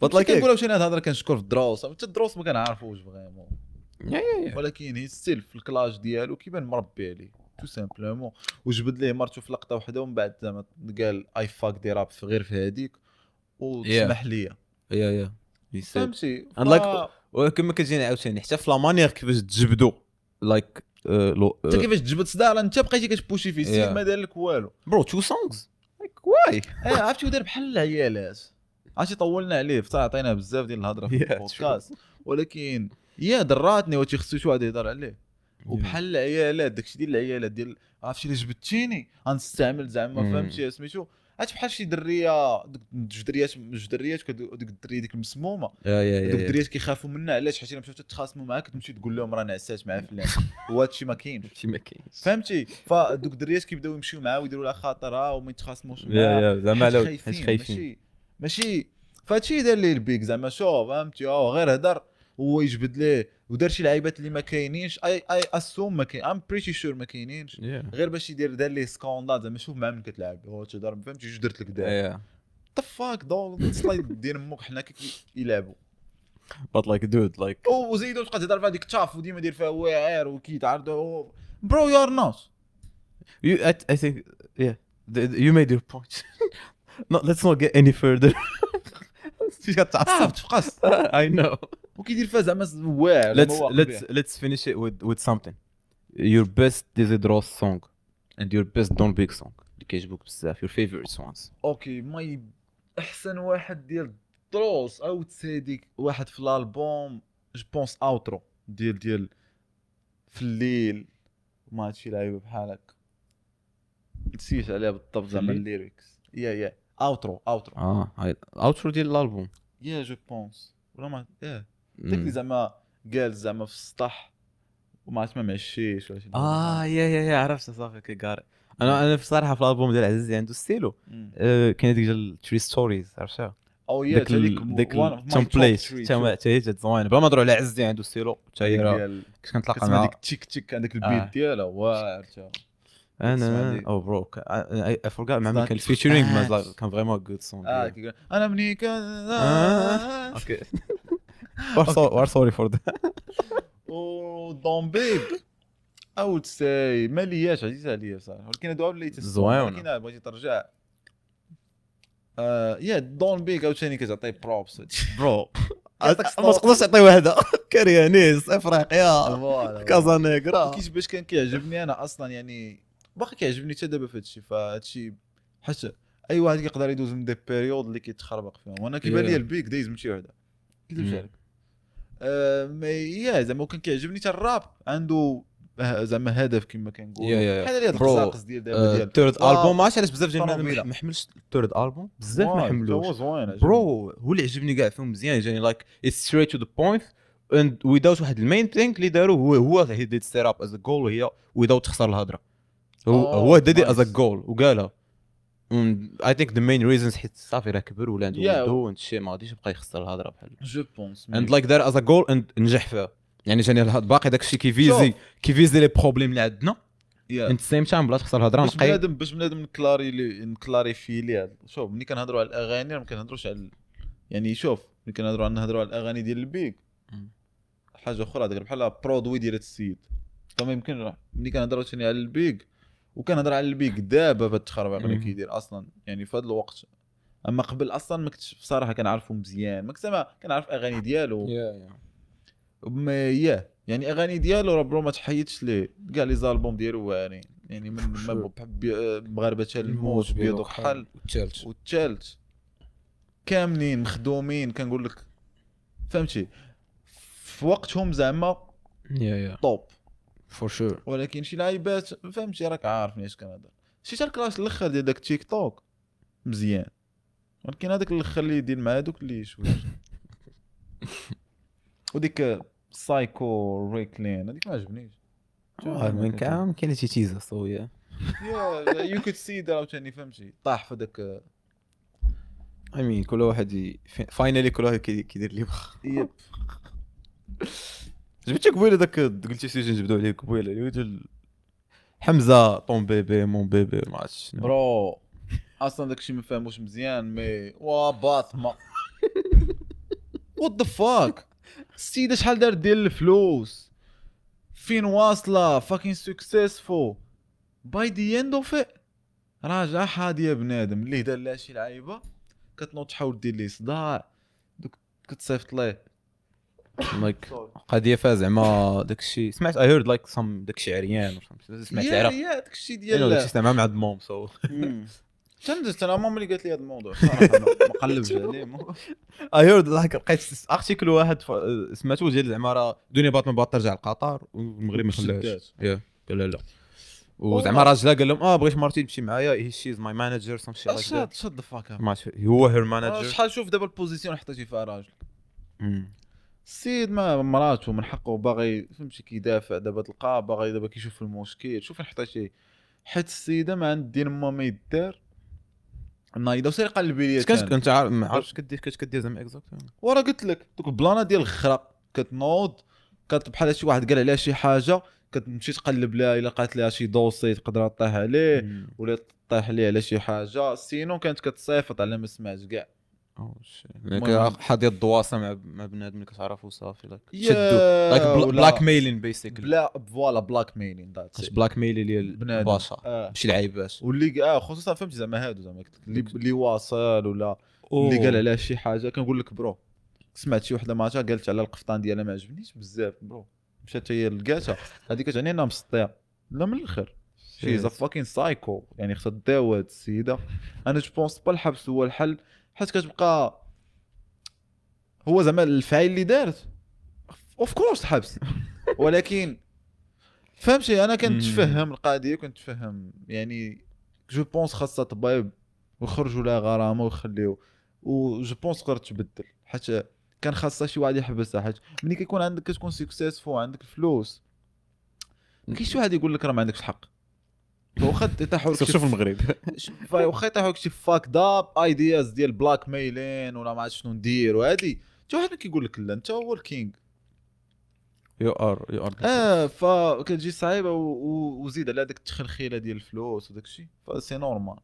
but like كنقولوا شي هاد الهضرة كنشكر في الدروس حتى الدروس ما كنعرفوش vraiment، ولكن هي style في ال clash ديالو كيبان مربي عليه tout simplement. وجبد ليه مرته في لقطة واحدة ومن بعد زعما قال I fucked up غير في هذيك وتسمح لي yeah فهمتي. and like وكما كتجيني عاوتاني حتى في la manière كيفاش تجبدو like انت كيفاش تجبد صداع راه انت بقيتي كتبوشي فيه السيد ما دار لك والو bro two songs like why. عرفتي ودار بحال العيالات. عرفتي طولنا عليه فترة عطينا بزاف ديال الهضرة في البودكاست، ولكن يا دراتني وتي خصو شي واحد يهضر عليه. وبحال العيالات داكشي ديال العيالات ديال عرفتي اللي جبدتيني غنستعمل زعما فهمتي سميتو. عرفت بحال شي دريه، جوج دريات، جوج دريات، ديك الدريه ديك المسمومه، دوك الدريات كيخافوا منها. علاش؟ حيت الا مشاو تتخاصموا معاك تمشي تقول لهم راه نعسات مع فلان، وهذا الشيء ما كاينش، هادشي ما كاينش، فهمتي؟ فدوك الدريات كيبداو يمشيو معاه ويديروا لها خاطرها وما يتخاصموش معاه، زعما خايفين ماشي. فهادشي دار ليه البيك زعما، شوف فهمتي، غير هدر هو يجبد ليه ودار شي لعيبات اللي ما كاينينش، I assume ما كاين، I'm pretty sure ما كاينينش، غير باش يدير دار ليه scandale زعما شوف مع من كتلعب، هو تهضر فهمتي، جوج درت لك دار the fuck dog slide دير امك، حنا كيلعبوا but like dude like وزيدوا تبقى تهضر في هذيك التاف وديما دير فيها واعر وكيتعرضوا bro you are not you I think yeah you made your point. No, let's not get any further. تعصب تفقس. I know. وكيدير فيها زعما واعر. Let's finish it with something. Your best Dizzy Dross song and your best Don Big song اللي كيعجبوك بزاف, your favorite ones. okay, my احسن واحد ديال دروس او تسيديك واحد في الالبوم je pense outro ديال في الليل ما هادشي لعيبة بحال هكا نسيت عليها بالضبط زعما ال lyrics. yeah outro هاي outro ديال الالبوم yeah je pense ولا ما yeah داك اللي زعما قال زعما في السطح وما عرفت ما معشيش ولا شي. yeah yeah عرفت صافي كيقاري. انا بصراحة في الالبوم ديال عزيزي عنده ستيلو كاين ديك ديال 3 stories عرفتها oh yeah ديك template تا هي زوينة بلا ما نهضروا على عزيزي عنده ستيلو حتى هي راه كنت كنتلاقى مع ديك تيك تيك عندك ال beat ديالها واعر تا انا oh bro I forgot مع من كان featuring ما كان vraiment good song. انا مني كان okay we're sorry for that. و دون بيب I would say مالياش عزيز عليا بصراحة، ولكن هادو اللي زوينة، ولكن بغيتي ترجع yeah دون بيك عاوتاني كتعطي props bro ما تقدرش تعطي وحده كاريانيس افريقيا كازانيغرا كيفاش باش كان كيعجبني انا اصلا، يعني باقي كيعجبني حتى دابا في هادشي. فهادشي حيت اي واحد كيقدر يدوز من des périodes اللي كيتخربق فيهم، وانا كيبان لي البيك دايز من شي وحده كيدوز عليك. mais yeah زعما كان كيعجبني حتى الراب عنده زعما هدف كما كنقول بحال هاد القصاقص ديال دابا ديال ال third album. ما عرفتش علاش بزاف ديال ما حملش ال third album بزاف، ما حملوش bro. هو اللي عجبني كاع فيهم مزيان، جاني like it's straight to the point and without واحد ال main thing اللي داروا هو he did set up as a goal، وهي without تخسر الهضرة. هو did as a goal وقالها. I think the main reasons حيت صافي راه كبر ولا عنده ولدو and شي ما غاديش يبقى يخسر الهضرة بحال je pense and like دار as a goal and نجح فيها. يعني جاني باقي داك الشيء كيفيزي les problèmes اللي عندنا at same time بلا تخسر الهضرة نقي. باش بنادم نكلاريفي ليه. شوف ملي كنهضروا على الاغاني ما كنهضروش على يعني شوف ملي كنهضروا على الاغاني ديال البيك حاجة اخرى، داك بحال produit ديال السيد. فما يمكن ملي كنهضروا ثاني على البيك وكنهضر على البيك دابا في التخربيق اللي كيدير اصلا يعني في هذا الوقت، اما قبل اصلا ما كنتش بصراحة كنعرفو مزيان، ما كنت كنعرف اغاني ديالو mais yeah يعني اغاني ديالو راه bro ما تحيدش ليه كاع les albums ديالو واعرين يعني من ما بحب مغاربة الموت بيض وكحل والثالث كاملين مخدومين كنقول لك فهمتي في وقتهم زعما yeah top for sure. ولكن شي لعيبات فهمتي راك عارفني اش كنهضر. شي حتى ال clash الاخر ديال داك تيك توك مزيان، ولكن هذاك الاخر اللي يدير مع هذوك اللي شوية وديك سايكو ريكلين هذيك ما عجبنيش. من كان كاين شي تيزا so yeah you could see that عاوتاني فهمتي طاح في داك. I mean كل واحد finally كل واحد كيدير اللي بغا. yep جبتي قبيلة داك قلتي سيجي نجبدو عليه قبيلة حمزة ton bébé mon bébé ما عرفتش bro اصلا داكشي ما فاهموش مزيان mais وا باطمه what the fuck السيدة شحال دار ديال الفلوس فين واصله fucking successful by the end of راجع حاديه بنادم اللي دار لها شي لعيبة كتنوض تحاول دير ليه صداع دوك كتصيفط ليه like قضية فيها زعما داكشي. سمعت I heard like some داكشي عريان سمعت العراق yeah داكشي ديال داكشي زعما مع mom so تندزت انا ماما اللي قالت لي هذا الموضوع صراحة ما قلبش عليه. I heard like لقيت article واحد سمعته ديال زعما راه دنيا باطمه بغات ترجع لقطر والمغرب ما خلاهاش. yeah قال لا وزعما راجلها قال لهم بغيت مرتي تمشي معايا، she is my manager some shit like that. shut the fuck up. ما هو her manager. شحال شوف دابا ال position حطيتي فيها راجل. السيد ما مراته من حقه باغي فهمتي كيدافع دابا، تلقاه باغي دابا كيشوف المشكل. شوف فين حطيتي، حيت السيدة ما عند دين ما ما يدار نايضه وسير قلبي ليا. كنت عارف ما عرفتش كدير كدير زعما exact. وراه قلت لك دوك البلانه ديال الخرا كتنوض بحال شي واحد قال عليها شي حاجة كتمشي تقلب لها، الا لقات لها شي dossier تقدر طيح عليه ولا طيح ليه على شي حاجة. sinon كانت كتصيفط على ما سمعت كاع. oh حاضيه الدواسه مع بنادم اللي كتعرفو صافي like شدو like blackmailing basically. لا voilà blackmailing that's blackmail ديال الباشا ماشي العيباش واللي خصوصا فهمتي زعما هادو زعما اللي واصل ولا اللي قال عليها شي حاجة. كنقول لك bro سمعت شي وحده ماتها قالت على القفطان ديالها ما عجبنيش بزاف bro، مشات هي لقاتها هذيك كتعني انها مسطيه. لا من الاخر she's a fucking psycho، يعني خصها تداوى هاد السيدة. انا je pense pas الحبس هو الحل، حيت كتبقى هو زعما الفعل اللي دارت of course حبس، ولكن فهمتي انا كنتفهم القضية، كنتفهم يعني je pense خاصها طبيب ويخرجوا لها غرامة ويخليو، و je pense تقدر تبدل، حيت كان خاصها شي واحد يحبسها. حيت ملي كيكون عندك كتكون successful عندك الفلوس، ما كاينش شي واحد يقول لك راه ما عندكش الحق. واخا يطيحوا لك شوف المغرب، واخا يطيحوا لك شي fucked up ideas ديال blackmailing ولا ما عرفت شنو ندير وهادي، حتى واحد ما كيقول لك لا انت هو ال king you are فكتجي صعيبة وزيد على داك التخلخيله ديال الفلوس وداك الشيء، ف c'est normal.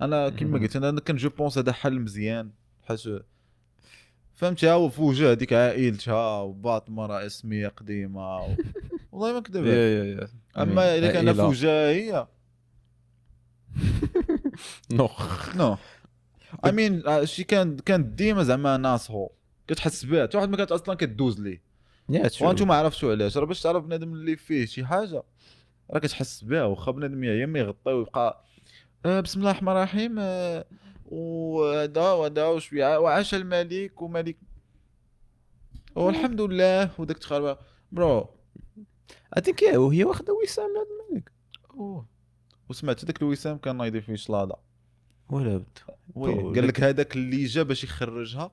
انا كما قلت انا كان je pense هذا حل مزيان، حيت فهمتي هو في وجه هذيك عائلتها وباطمه راه اسميه قديمة والله ما كذب. اما الا كان في وجهها هي no no I mean شي كان ديما زعما ناس هو كتحس بها، حتى واحد ما كانت اصلا كدوز ليه. وانتم ما عرفتوا علاش، راه باش تعرف بنادم اللي فيه شي حاجة راه كتحس بها، واخا بنادم يا ما يغطي ويبقى بسم الله الرحمن الرحيم وهذا وهذا وشوية وعاش الملك وملك والحمد لله وداك التخربه bro. I think وهي واخده وسام من هذا الملك. وسمعت داك الوسام كان نايض فيه شلاضه ولا بد. قال لك هذاك اللي جا باش يخرجها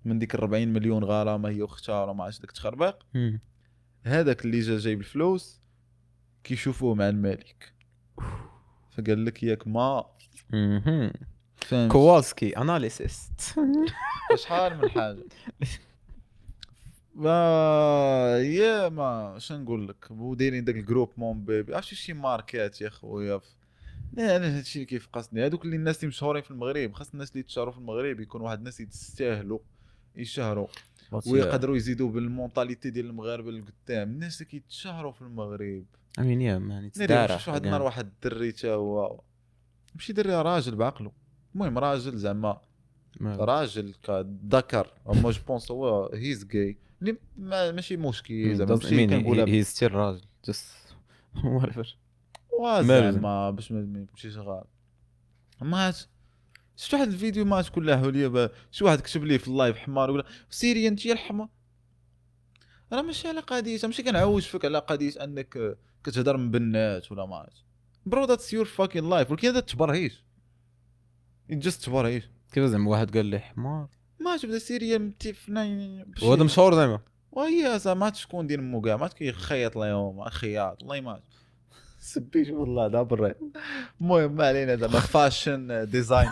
من ديك 40 مليون غرامة هي واختها ولا ما عرفتش داك التخربيق، هذاك اللي جا جايب الفلوس كيشوفوه مع الملك، فقال لك ياك ما كوالسكي analyst شحال من حاجة. ما يا ما شنو نقول لك، ودايرين داك ال groupe mon bébé عرفتي شي ماركات يا خويا. لا انا هادشي اللي كيفقصني، هادوك اللي الناس اللي مشهورين في المغرب، خاص الناس اللي يتشهروا في المغرب يكون واحد الناس يستاهلوا يشهروا ويقدروا يزيدوا بال mentalité ديال المغاربة للقدام. الناس اللي كيتشهروا في المغرب I mean yeah man تدار. شفت واحد النهار واحد الدري تا هو ماشي دري، راجل بعقله، المهم راجل زعما راجل كذكر، اما je pense هو he's gay اللي ماشي مشكل زعما، ماشي كنقولها he's still راجل just whatever زعما باش ما يمشيش غلط. ما شفت واحد الفيديو ما كلها حوليه، شي واحد كتب ليه في ال live حمار ولا سيري انت يا الحمار. راه ماشي على قضية، ماشي كنعوج فيك على قضية انك كتهضر من بنات ولا ما عرفت bro that's your fucking life، ولكن هذا تبرهيش just تبرهيش. كيف زعما واحد قال لي حمار ما تبدا سيريا متفنا وهذا مشهور زعما، وهي زعما شكون ديال مو كاع ما كيخيط لهم خياط والله ما سبيت والله دا بري. المهم ما علينا زعما fashion design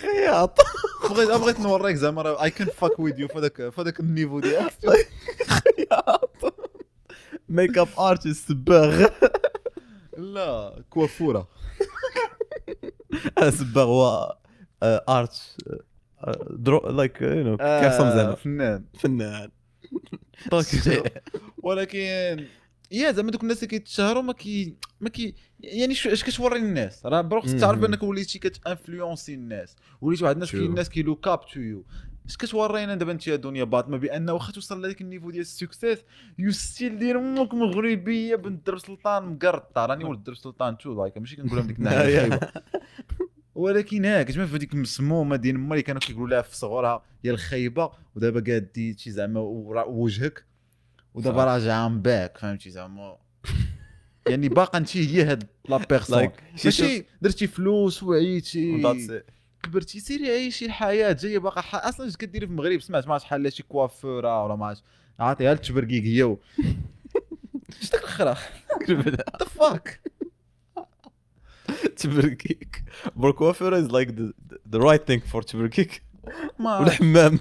خياط. بغيت نوريك زعما I can fuck with you فداك ال niveau ديالك. خياط makeup artist صباغ لا كوافوره صباغ هو art draw like you know كيرسم زعما فنان ولكن يا زعما دوك الناس اللي كيتشهروا ما كي يعني اش كتوري للناس راه bro خصك تعرف انك وليتي كت influencer الناس، وليتي واحد الناس كاين الناس كي look up to you. اش كتورينا دابا انت يا دنيا باطمه بان واخا توصل لهذاك ال niveau ديال ال success you still دير امك مغربية بنت درب سلطان مقرطه. راني ولد درب سلطان too like ماشي كنقولها من ديك الناحية الخايبة، ولكن ها كتبان في ديك المسمومه ديال ما اللي كانوا كيقولوا لها في صغرها يا الخايبة، ودابا قاديتي زعما وجهك ودابا راجع I'm back، فهمتي زعما. يعني باقا انت هي هاد la personne، ماشي درتي فلوس وعيتي كبرتي، سيري عيشي الحياة جاية باقا. اصلا اش كديري في المغرب؟ سمعت ما شحال لا شي كوافوره ولا ما عاطيها للتبرقيق هي اش داك الخرا the fuck تبرقيق. bro coiffeur is like the right thing for تبرقيق ولا حمام.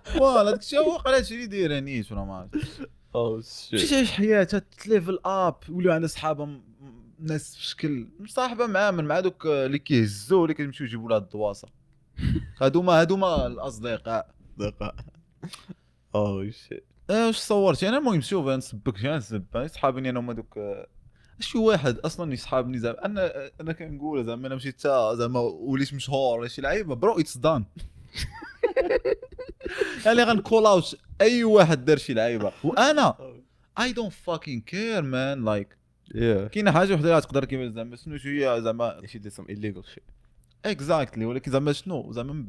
voilà داك الشيء هو قال هادشي اللي دايرة نيت ولا ما عرفت. oh shit، مشيت تعيش حياتها ت level up، ولاو عندها صحابه ناس في شكل مصاحبه مع من مع دوك اللي كيهزوا اللي كيمشيو يجيبوا لها الدواسه. هادوما الاصدقاء. oh shit. واش صورتي انا؟ المهم شوف نسبك نسب صحابني انا هما دوك شي واحد اصلا يصحابني زعما انا كنقول زعما انا مشيت حتى زعما وليت مشهور ولا شي لعيبة، bro it's done. يعني غن call out اي واحد دار شي لعيبة، وانا I don't fucking care man. like كاينه حاجة وحده اللي تقدر كيفاش زعما شنو هي زعما شي did some illegal shit exactly، ولكن زعما شنو زعما من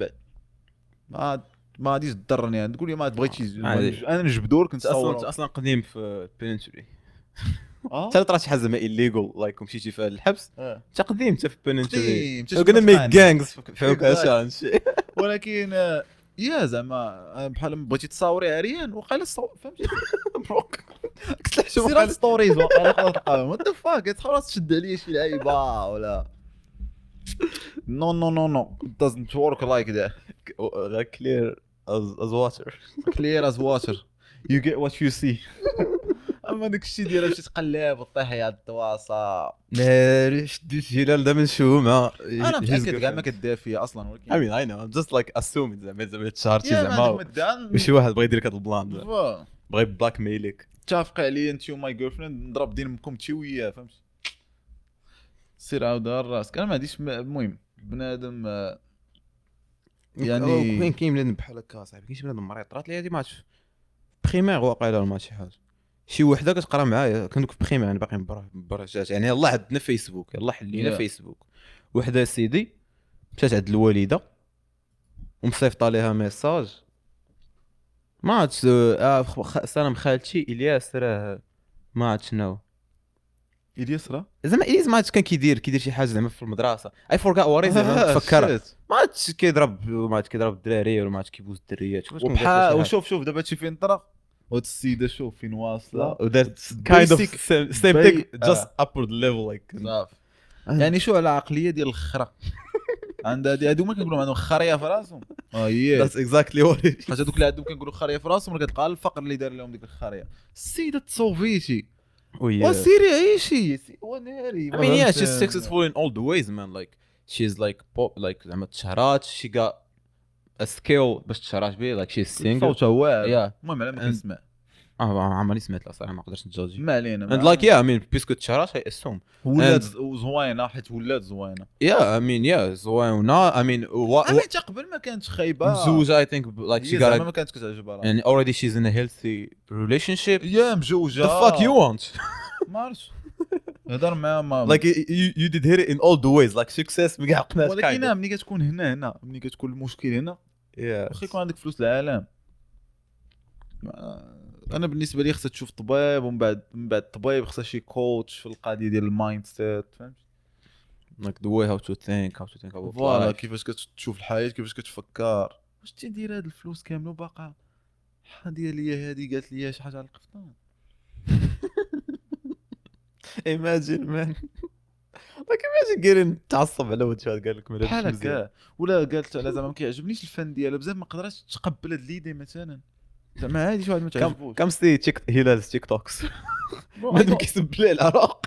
بعد ما غاديش تضرني. يعني تقول لي ما بغيتش انا نجبدو لك نصور. اصلا قديم في penitentiary. حتى طرات شي حاجة زعما illegal like ومشيتي في الحبس انت قديم حتى في penitentiary gonna make gangs في عكاشة شي. ولكن يا زعما بحال بغيتي تصاوري عريان وقال فهمتي بروك قلت سير stories وقال تلقاهم what the fuck تحاول تشد عليا شي لعيبة ولا no no no no doesn't work like that. clear as water. clear as water. you get what you see. اما داك الشيء ديال باش تقلب وطيح يا الدواسه ناري شديت هلال دا من شومه. انا متاكد كاع ما كدير فيا اصلا، ولكن I mean I know I'm just like assuming زعما تشارتي زعما وشي واحد بغى يدير لك هذا ال plan، بغى blackmail ك. اتفقي عليا انت و my girlfriend نضرب دين امكم انت وياه، فهمت؟ سير عاود راسك. انا ما عنديش. المهم بنادم يعني كاين بنادم بحال هكا صاحبي، كاين شي بنادم مريض. طرات لي هذه ما عرفتش primaire واقيلا ما شي حاجة، شي وحده كتقرا معايا كندوك في primaire، يعني باقي برجات يعني يلاه عندنا فيسبوك، يلاه حلينا فيسبوك. وحده سيدي مشات عند الوالدة ومصيفطه ليها message ما عرفتش سلام خالتي الياس راه ما عرفت شنو الياس راه زعما الياس ما عرفتش كان كيدير شي حاجة زعما في المدرسة I forgot what is زعما تفكر ما عرفتش كيضرب ما عرفتش كيضرب الدراري ولا ما عرفتش كيبوس الدريات. وبحال وشوف دابا هادشي فين طرا وهاد السيدة شوف فين واصله ودارت kind of same thing just upward level like صافي. يعني شو على عقلية ديال الخرا عند هادو ما كنقولوا عندهم خريه في راسهم. هي that's exactly what it حيت هادوك اللي عندهم كنقولوا خريه في راسهم، كتلقى الفقر اللي دار لهم ديك الخريه. السيدة تصوفيتي وسيري عيشي وناري. I mean yeah she's successful in all the ways man like she's like pop like زعما تشهرات she got a skill باش تشهرات به like she's single صوتها واعر. المهم على ما كنسمع عمرني سمعت لها صراحة ما قدرتش نجوجي ما علينا. and like yeah I mean parce que تشهرات I assume ولات زوينة حيت ولات زوينة. yeah I mean yeah زوينة I mean حتى قبل ما كانت خايبة مزوجه I think like she got ما كانتش كتعجبها and already she's in a healthy relationship. yeah مزوجه the fuck you want ما عرفتش هضر معاها ما like you did hit it in all the ways like success ما عقناش. ولكن ملي كتكون هنا ملي كتكون المشكل هنا واخا يكون عندك فلوس العالم، انا بالنسبة لي خصها تشوف طبيب، ومن بعد من بعد الطبيب خصها شي coach في القضية ديال ال mindset، فهمت؟ like the way how to think about voilà كيفاش كتشوف الحياة، كيفاش كتفكر. واش تدير هاد الفلوس كاملة وباقا حاديه ليا هادي قالت لي شي حاجة على القفطان. imagine man like imagine getting تعصب على وجهها قال لك بحال هكا، ولا قالت على زعما ما كيعجبنيش الفن ديالها بزاف، ما قدرتش تقبل هاد l'idée مثلا زعما هادي شي واحد ما تعجبوش. come see تيك هلال TikToks ما كيسب ليه العراق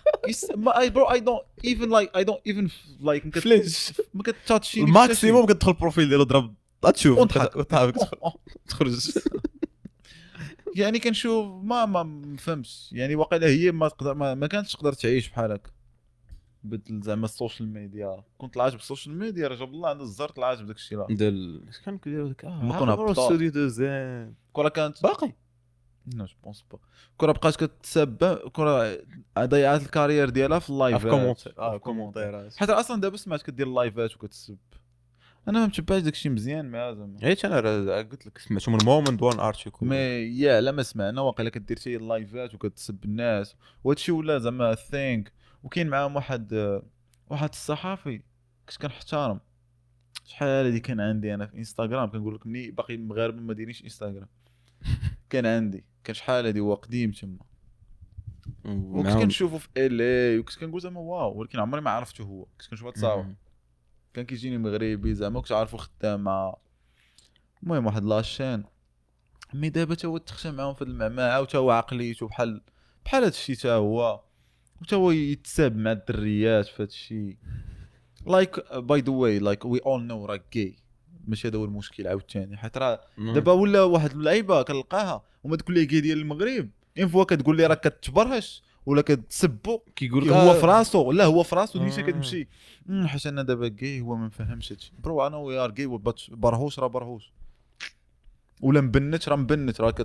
ما I bro I don't even like I don't even like flinch ما كتاتشي ال maximum كتدخل ال profil ديالو ضرب تشوف وتضحك تخرج. يعني كنشوف ما فهمتش يعني واقيلا هي ما تقدر ما كانتش تقدر تعيش بحال هكا بدل زعما ال social media. كنت طلعت بال social media راه جاب الله عند الزر طلعت بداك الشيء ديال اش كان كيديروا داك استوديو دوزان كره كانت باقي non je pense pas. كره بقات كتسب كره ضيعات ال carrière ديالها في ال live commentaire ات حيت اصلا دابا سمعت كدير ال live ات وكتسب. انا ما متبعش داكشي مزيان مع زعما. حيت انا راه قلت لك سمعتو من moment one article. mais yeah لا ما سمعنا، واقيلا كدير شي لايفات وكتسب الناس وهادشي ولا زعما thing. وكاين معاهم واحد الصحافي كنت كنحترم شحال هادي، كان عندي انا في انستغرام، كنقول لك ملي باقي المغاربة ما دايرينش انستغرام كان عندي، كان شحال هادي هو قديم تما، وكنت كنشوفو في LA وكنت كنقول زعما wow، ولكن عمري ما عرفته هو، كنت كنشوف تصاور كان كيجيني مغربي زعما، كنت عارفو خدام مع المهم واحد la chaîne. mais دابا تا هو تخشى معاهم في المعمعة، وتا هو عقليته بحال هادشي، تا هو وتا هو يتساب مع الدريات في هادشي. like by the way like we all know راه gay، ماشي هذا هو المشكل عاوتاني، حيت راه دابا ولا واحد اللعيبة كنلقاها وما تقول لي gay ديال المغرب une fois كتقول لي راه كتبرهش ولا كتسبو كيقول هو في راسو، لا هو في راسو ديما كتمشي حيت انا دابا gay هو ما فهمش هادشي. bro انا we are gay، برهوش راه برهوش، ولا مبنت راه مبنت، راه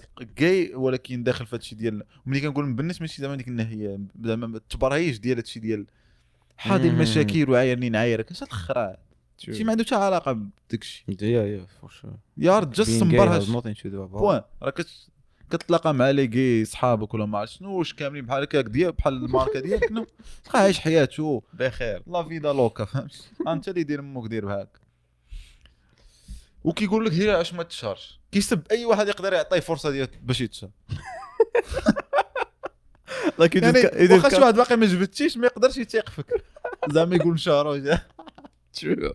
gay ولكن داخل في هادشي ديال. ملي كنقول مبنت ماشي زعما ديك الناحية زعما التبرهيش ديال هادشي ديال حاضي المشاكل وعايرني نعايرك، اش هاد الخرا شي ما عنده حتى علاقة بداك الشيء. yeah for sure you're just مبرهش point. راه كتلاقى مع les gays صحابك ولا ما عرفت شنو، واش كاملين بحال هكاك ديال بحال الماركة ديالك، no تلقى عايش حياته بخير la vida loca، فهمت؟ انت اللي دير امك دير بهاك. وكيقول لك هي علاش ما تشهرش، كيسب اي واحد يقدر يعطيه فرصة ديال باش يتشهر. like يعني واخا شي واحد باقي ما جبتيش ما يقدرش يتيق فيك زعما يقول نشهرو. True.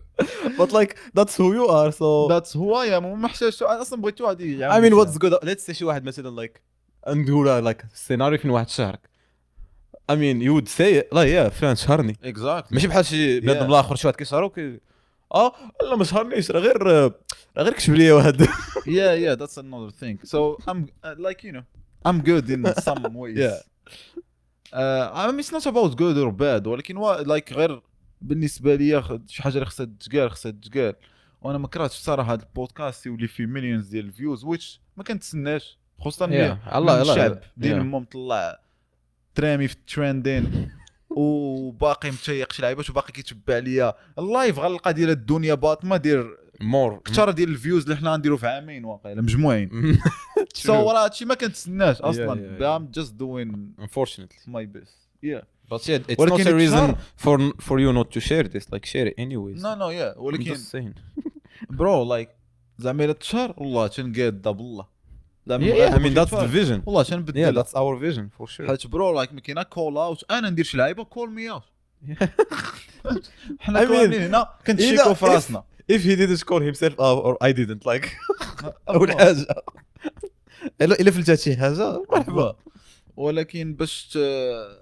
But like that's who you are, so that's who I am. وما حتاجش انا اصلا بغيت واحد I mean what's good, let's say شي واحد مثلا like نقولها like السيناريو فين واحد شهرك، I mean you would say it لا yeah فلان شهرني exactly. ماشي بحال شي بنادم الاخر شي واحد كيشهرو لا ما شهرنيش راه غير كتب لي واحد. yeah that's another thing. So I'm like you know I'm good in some ways. yeah I mean it's not about good or bad، ولكن like غير بالنسبة لي شي حاجة اللي خصها تتقال خصها تتقال. وانا ما كرهتش الصراحة هذا البودكاست يولي فيه millions ديال ال views، which ما كنتسناش خصوصا الله الشعب ديال امهم طلع ترامي في ال trending وباقي متيق شي لعيبات وباقي كيتبع ليا ال live، غنلقى ديال الدنيا باطمه دير more كثر ديال ال views اللي حنا نديرو في عامين واقيلا مجموعين. so راه هادشي ما كنتسناش اصلا. I'm just doing unfortunately my best. yeah But yeah, it's not a reason for you not to share this. Like share it anyways. No, yeah. ولكن bro like زعما إلا تشهر والله تنقاد بالله. Yeah, I mean that's the vision. والله تنبدل. Yeah, that's our vision for sure. حيت bro like ما كاينه call out، أنا ندير شي لعيبة call me out. حنا كاملين هنا كنتشيكو في راسنا. If he didn't call himself out or I didn't like. أول حاجة. إلا فلتات شي حاجة مرحبا. ولكن باش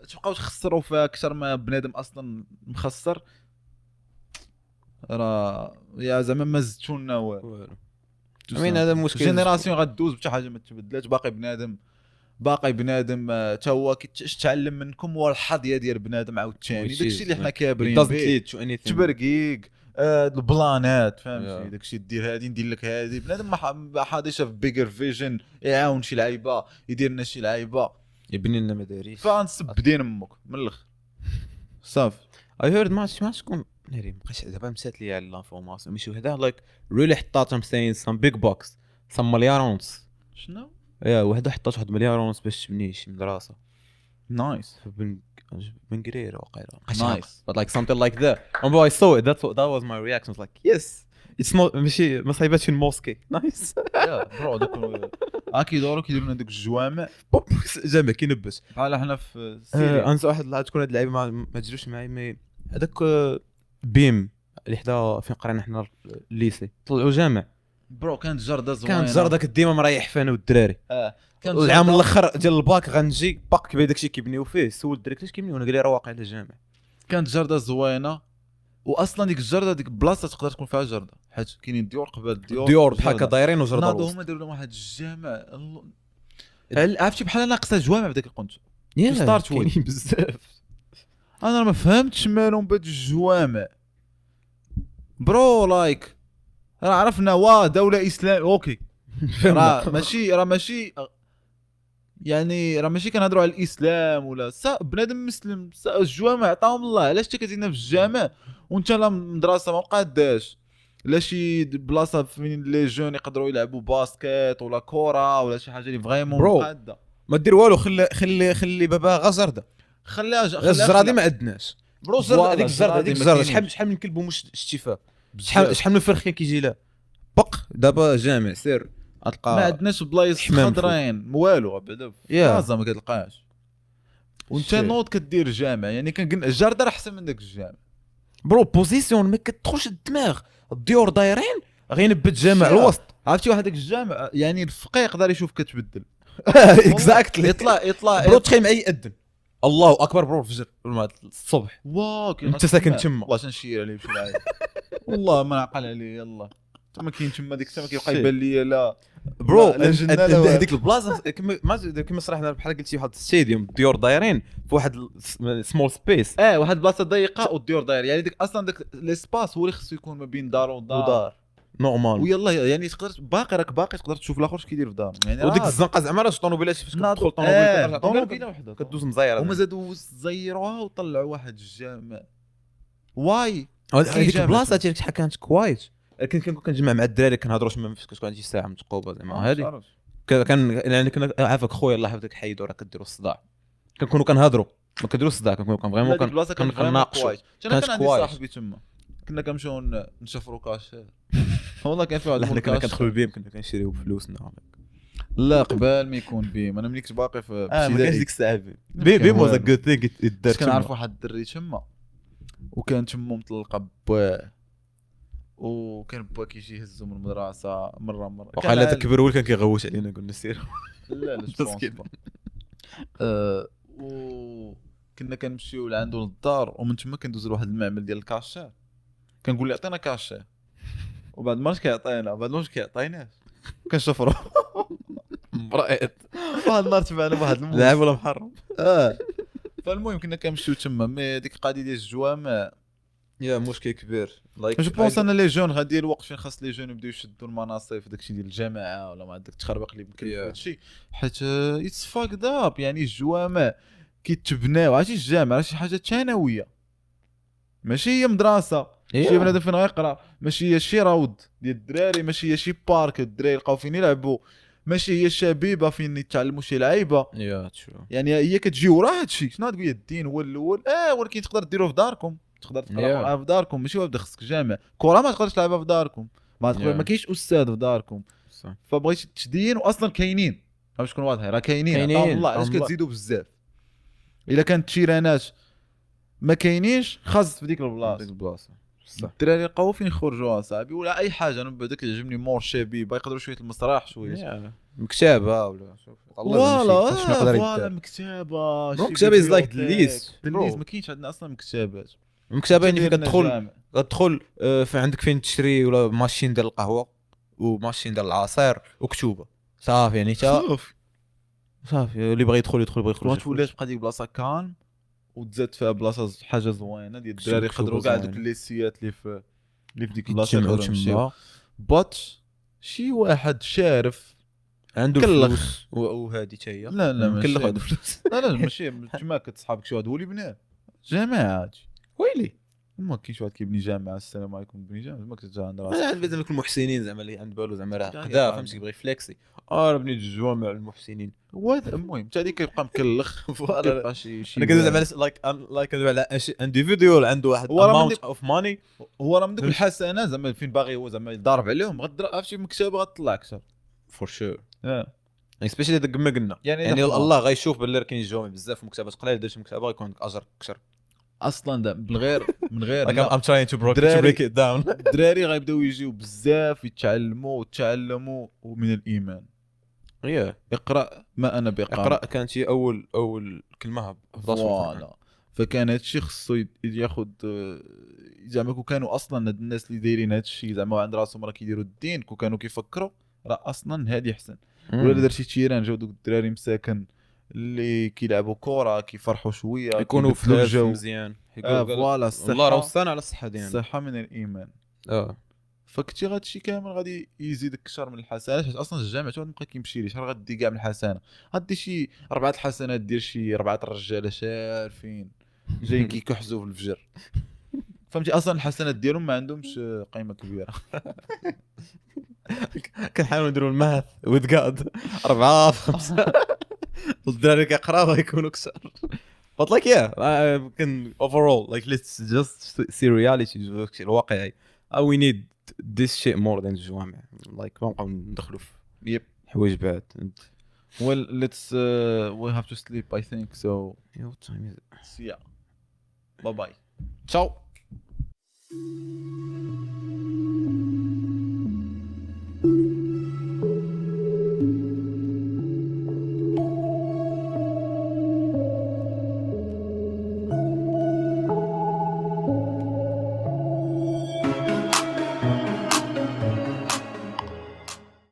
تبقاو تخسروا فيها اكثر ما بنادم اصلا مخسر، راه يا زعما ما زدتو لنا والو. I mean هذا مشكل génération غدوز بحتى حاجة ما تبدلات، باقي بنادم حتى هو كيتعلم منكم، هو الحظيه ديال بنادم عاوتاني داكشي اللي حنا كابرين به تبرقيق البلانات، فهمتي؟ داكشي دير هادي ندير لك هادي، بنادم ما حاضيش في bigger vision، يعاون شي لعيبة يدير لنا شي لعيبة يبني لنا مدارس، فنسب دين امك من الاخر صافي. I heard ما شكون ناري مابقاش دابا مشات لي على l'information ماشي وحده like really حطاتهم saying some big bucks some مليار ونص. شنو؟ yeah وحده حطات واحد مليار ونص باش تبني شي مدرسه. nice بن قرير وقيله nice but like something like that and I saw it that was my reaction. I was like yes it's not ماشي ما صايباتش ال mosquée. nice yeah bro دوك كيدوروا كيديروا لنا دوك الجوامع بوب جامع كينبش بحال حنا في سيريا. انسى واحد لا تكون هاد اللعيبة ما تجروش معايا، mais هذاك بيم اللي حدا فين قرينا حنا ال lycée طلعوا جامع bro. كانت جرده زوينة، كانت جرده كنت ديما مريح فينا والدراري. كانت العام الاخر ديال الباك غنجي باك كبير داكشي كيبنيو فيه، سول الدراري كيفاش كيبنيو، انا قال لي راه واقع على الجامع. كانت جرده زوينة، واصلا ديك الجرده ديك البلاصة تقدر تكون فيها جرده، حيت كاينين ديور قبل الديور بحال هكا دايرين وجرده. ناضوا هما داروا لهم واحد الجامع، عرفتي بحال ناقصه جوامع بداك القنت start with بزاف. انا ما فهمتش مالهم بهاد الجوامع bro. like راه عرفنا وا دولة اسلام okay، راه ماشي يعني راه ماشي كنهضروا على الاسلام ولا بنادم مسلم، الجوامع عطاهم الله. علاش انت كتزيدنا في الجامع وانت لا مدرسه ما قاداش لا شي بلاصة فين les jeunes يقدروا يلعبوا basket ولا كره ولا شي حاجة اللي vraiment مقاده. ما دير والو، خلي خلي خلي بابا غا زرده، خليها الزرادي ما عندناش bro. هذيك الزرده، هذيك الزرده شحال من كلب ومش شتي فيها، شحال من فرخ كان كيجي لها بق. دابا جامع سير غتلقى ما عندناش بلايص خضرين والو بعدا في ما كتلقاش. وانت نوض كدير جامع، يعني كنقول الجردة راه احسن من داك الجامع bro. position ما كتدخلش الدماغ، الديور دايرين غينبت جامع الوسط. عرفتي واحد داك الجامع يعني الفقيه يقدر يشوف كتبدل. exactly. يطلع bro تخيل معايا يأذن الله اكبر bro الفجر الصبح، واو انت ساكن تما. والله تنشير عليه بشي العادي والله ما نعقل عليه. يلا ما كاين تما ديك الساعة ما كيبقى يبان لي لا bro. هذيك البلاصة كما صراحة بحال قلتي واحد stadium، الديور دايرين في واحد small space، واحد البلاصة ضيقه والديور داير، يعني ديك اصلا داك l'espace هو اللي خصو يكون ما بين دار ودار normal. ويلا يعني تقدر باقي راك باقي تقدر تشوف الاخر اش كيدير في دار يعني. وديك الزنقة زعما راه طوموبيلات فاش كتدخل طوموبيل طوموبيله وحده كدوز مزيره، هما زادوا زيروها وطلعوا واحد الجامع. واي هذيك البلاصة ديالك شحال كانت quiet. كنت كنجمع مع الدراري كنهضروا تما فاش كتكون عندي ساعة متقوبه زعما هذه كان يعني كنا عافاك خويا الله يحفظك حيدوا راه كديروا الصداع. كنكونوا كنهضروا ما كنديروش الصداع، كنكونوا vraiment كنناقشوا. انا كان عندي صاحبي تما كنا كنمشيو نشفروا كاش والله كان في واحد حنا كنا كندخلوا بيم كنا كنشريو بفلوسنا. لا قبل ما يكون بيم انا ملي كنت باقي في ما كانش ديك الساعة بيم was a good thing. كنعرف واحد الدري تما وكان تما مطلقه بواه، وكان با كيجي يهزو من المدرسة مرة مرة. وقال هذا كبر هو كان كيغوت علينا قلنا سير لا لا وكنا كنمشيو لعندو للدار، ومن تما كندوزو لواحد المعمل ديال الكاشير، كنقول له عطينا كاشير، وبعد ما كيعطينا بعد ما كيعطيناش كنشفرو مرأت. واحد النهار تبعنا واحد لاعب ولا محرم. فالمهم كنا كنمشيو تما. mais ديك القضية ديال الجوامع يا مشكل كبير. je pense انا les jeunes غادي الوقت فين خاص les jeunes يبداو يشدوا المناصب في داكشي ديال الجامعة ولا ما عندك تخربق اللي يمكن هادشي، حيت it's fucked up. يعني الجوامع كيتبناو، عرفتي الجامعة راه شي حاجة ثانوية ماشي هي مدرسه، شي بنادم فين غيقرا، ماشي هي شي روض ديال الدراري، ماشي هي شي parc الدراري يلقاو فين يلعبوا، ماشي هي الشبيبة فين يتعلموا شي لعيبة. يعني هي كتجي ورا هادشي. شنو تقول الدين هو الاول، ولكن تقدر ديروه في داركم، تقدر تقرا في داركم، ماشي واحد خصك جامع كره ما تقدرش تلعبها في داركم، ما تقدر ما كاينش استاذ في داركم. فبغيت تدين واصلا كاينين، باش تكون واضحة راه كاينين. الله علاش كتزيدوا بزاف؟ الا كانت تيرانات ما كاينينش خاص في ديك البلاصة الدراري لقاو فين يخرجوا اصاحبي ولا اي حاجة. انا بعدا كيعجبني مور شبيبة يقدروا شوية المسرح شوية مكتبه ولا شوف الله شنو يقدر يدير. مكتبه مكتبه is like the least. ما كاينش عندنا اصلا مكتبات. مكتبه يعني كتدخل في عندك فين تشري ولا machine ديال القهوة و machine ديال العصير وكتوبه صافي. يعني تا صافي اللي بغى يدخل يدخل، بغى يخرج. ولا تبقى ديك بلاصة calme وتزاد فيها بلاصة حاجة زوينة ديال الدراري يقدروا كاع دوك الليسيات اللي في ديك البلاصة يقدروا يمشيو. but شي واحد شارف عنده الفلوس وهذه حتى هي لا لا مكلخ عنده فلوس. لا لا ماشي تما كتصحابك شي واحد هو اللي بناه جماعة. ويلي ما كاينش واحد كيبني جامعه السلام عليكم بني جامعه ما كتجي عند راسك. عند زعما المحسنين زعما اللي عند بالو زعما راه قدا فهمتي كيبغي فليكسي راه بنيت الجوامع المحسنين. المهم حتى هذيك كيبقى مكلخ. كيبقى شي انا كندوي زعما like كندوي على individual عنده واحد amount of money، هو راه من دوك الحسنة زعما فين باغي هو زعما يضارب عليهم. غدر عرفتي مكتبه غتطلع اكثر for sure. especially داك ما قلنا يعني الله غيشوف باللي راه كاين جوامع بزاف ومكتبات قليل، درت مكتبه غيكون عندك اجر اكثر اصلا. ده بالغير من غير I'm trying to break it down. الدراري غيبداو يجيو بزاف يتعلموا وتعلموا ومن الايمان. اقرا ما انا بقارئ. اقرا كانت هي اول كلمة voilà. فكان هادشي خصو ياخذ زعما كون كانوا اصلا هاد الناس اللي دايرين هادشي زعما عند راسهم راه كيديروا الدين، كون كانوا كيفكروا راه اصلا هادي احسن. ولا درتي terrain جاو دوك الدراري مساكن اللي كيلعبوا كره كيفرحوا شوية يكونوا في الجو مزيان. voilà الصحة الله راه وصانا على الصحة ديالنا، الصحة من الايمان. فكنتي غادشي كامل غادي يزيدك اكثر من الحسنات، حيت اصلا الجامع تا بقى كيمشي ليه شحال غادي كاع من الحسنة، غادي شي 4 الحسنات دير شي 4 الرجالة شارفين جايين كيكحزوا في الفجر. فهمتي؟ اصلا الحسنات ديالهم ما عندهمش قيمة كبيرة. كنحاولوا نديروا ال math with God، 4 في 5، والدراري كيقراو غيكونوا كثر. But like yeah, can overall like let's just see reality، داكشي الواقعي. We need this shit more than الجوامع، like ما نبقاو ندخلوا في حوايج بعد. Well, let's we have to sleep I think so. Yeah, what time is it? See ya, bye bye. Ciao.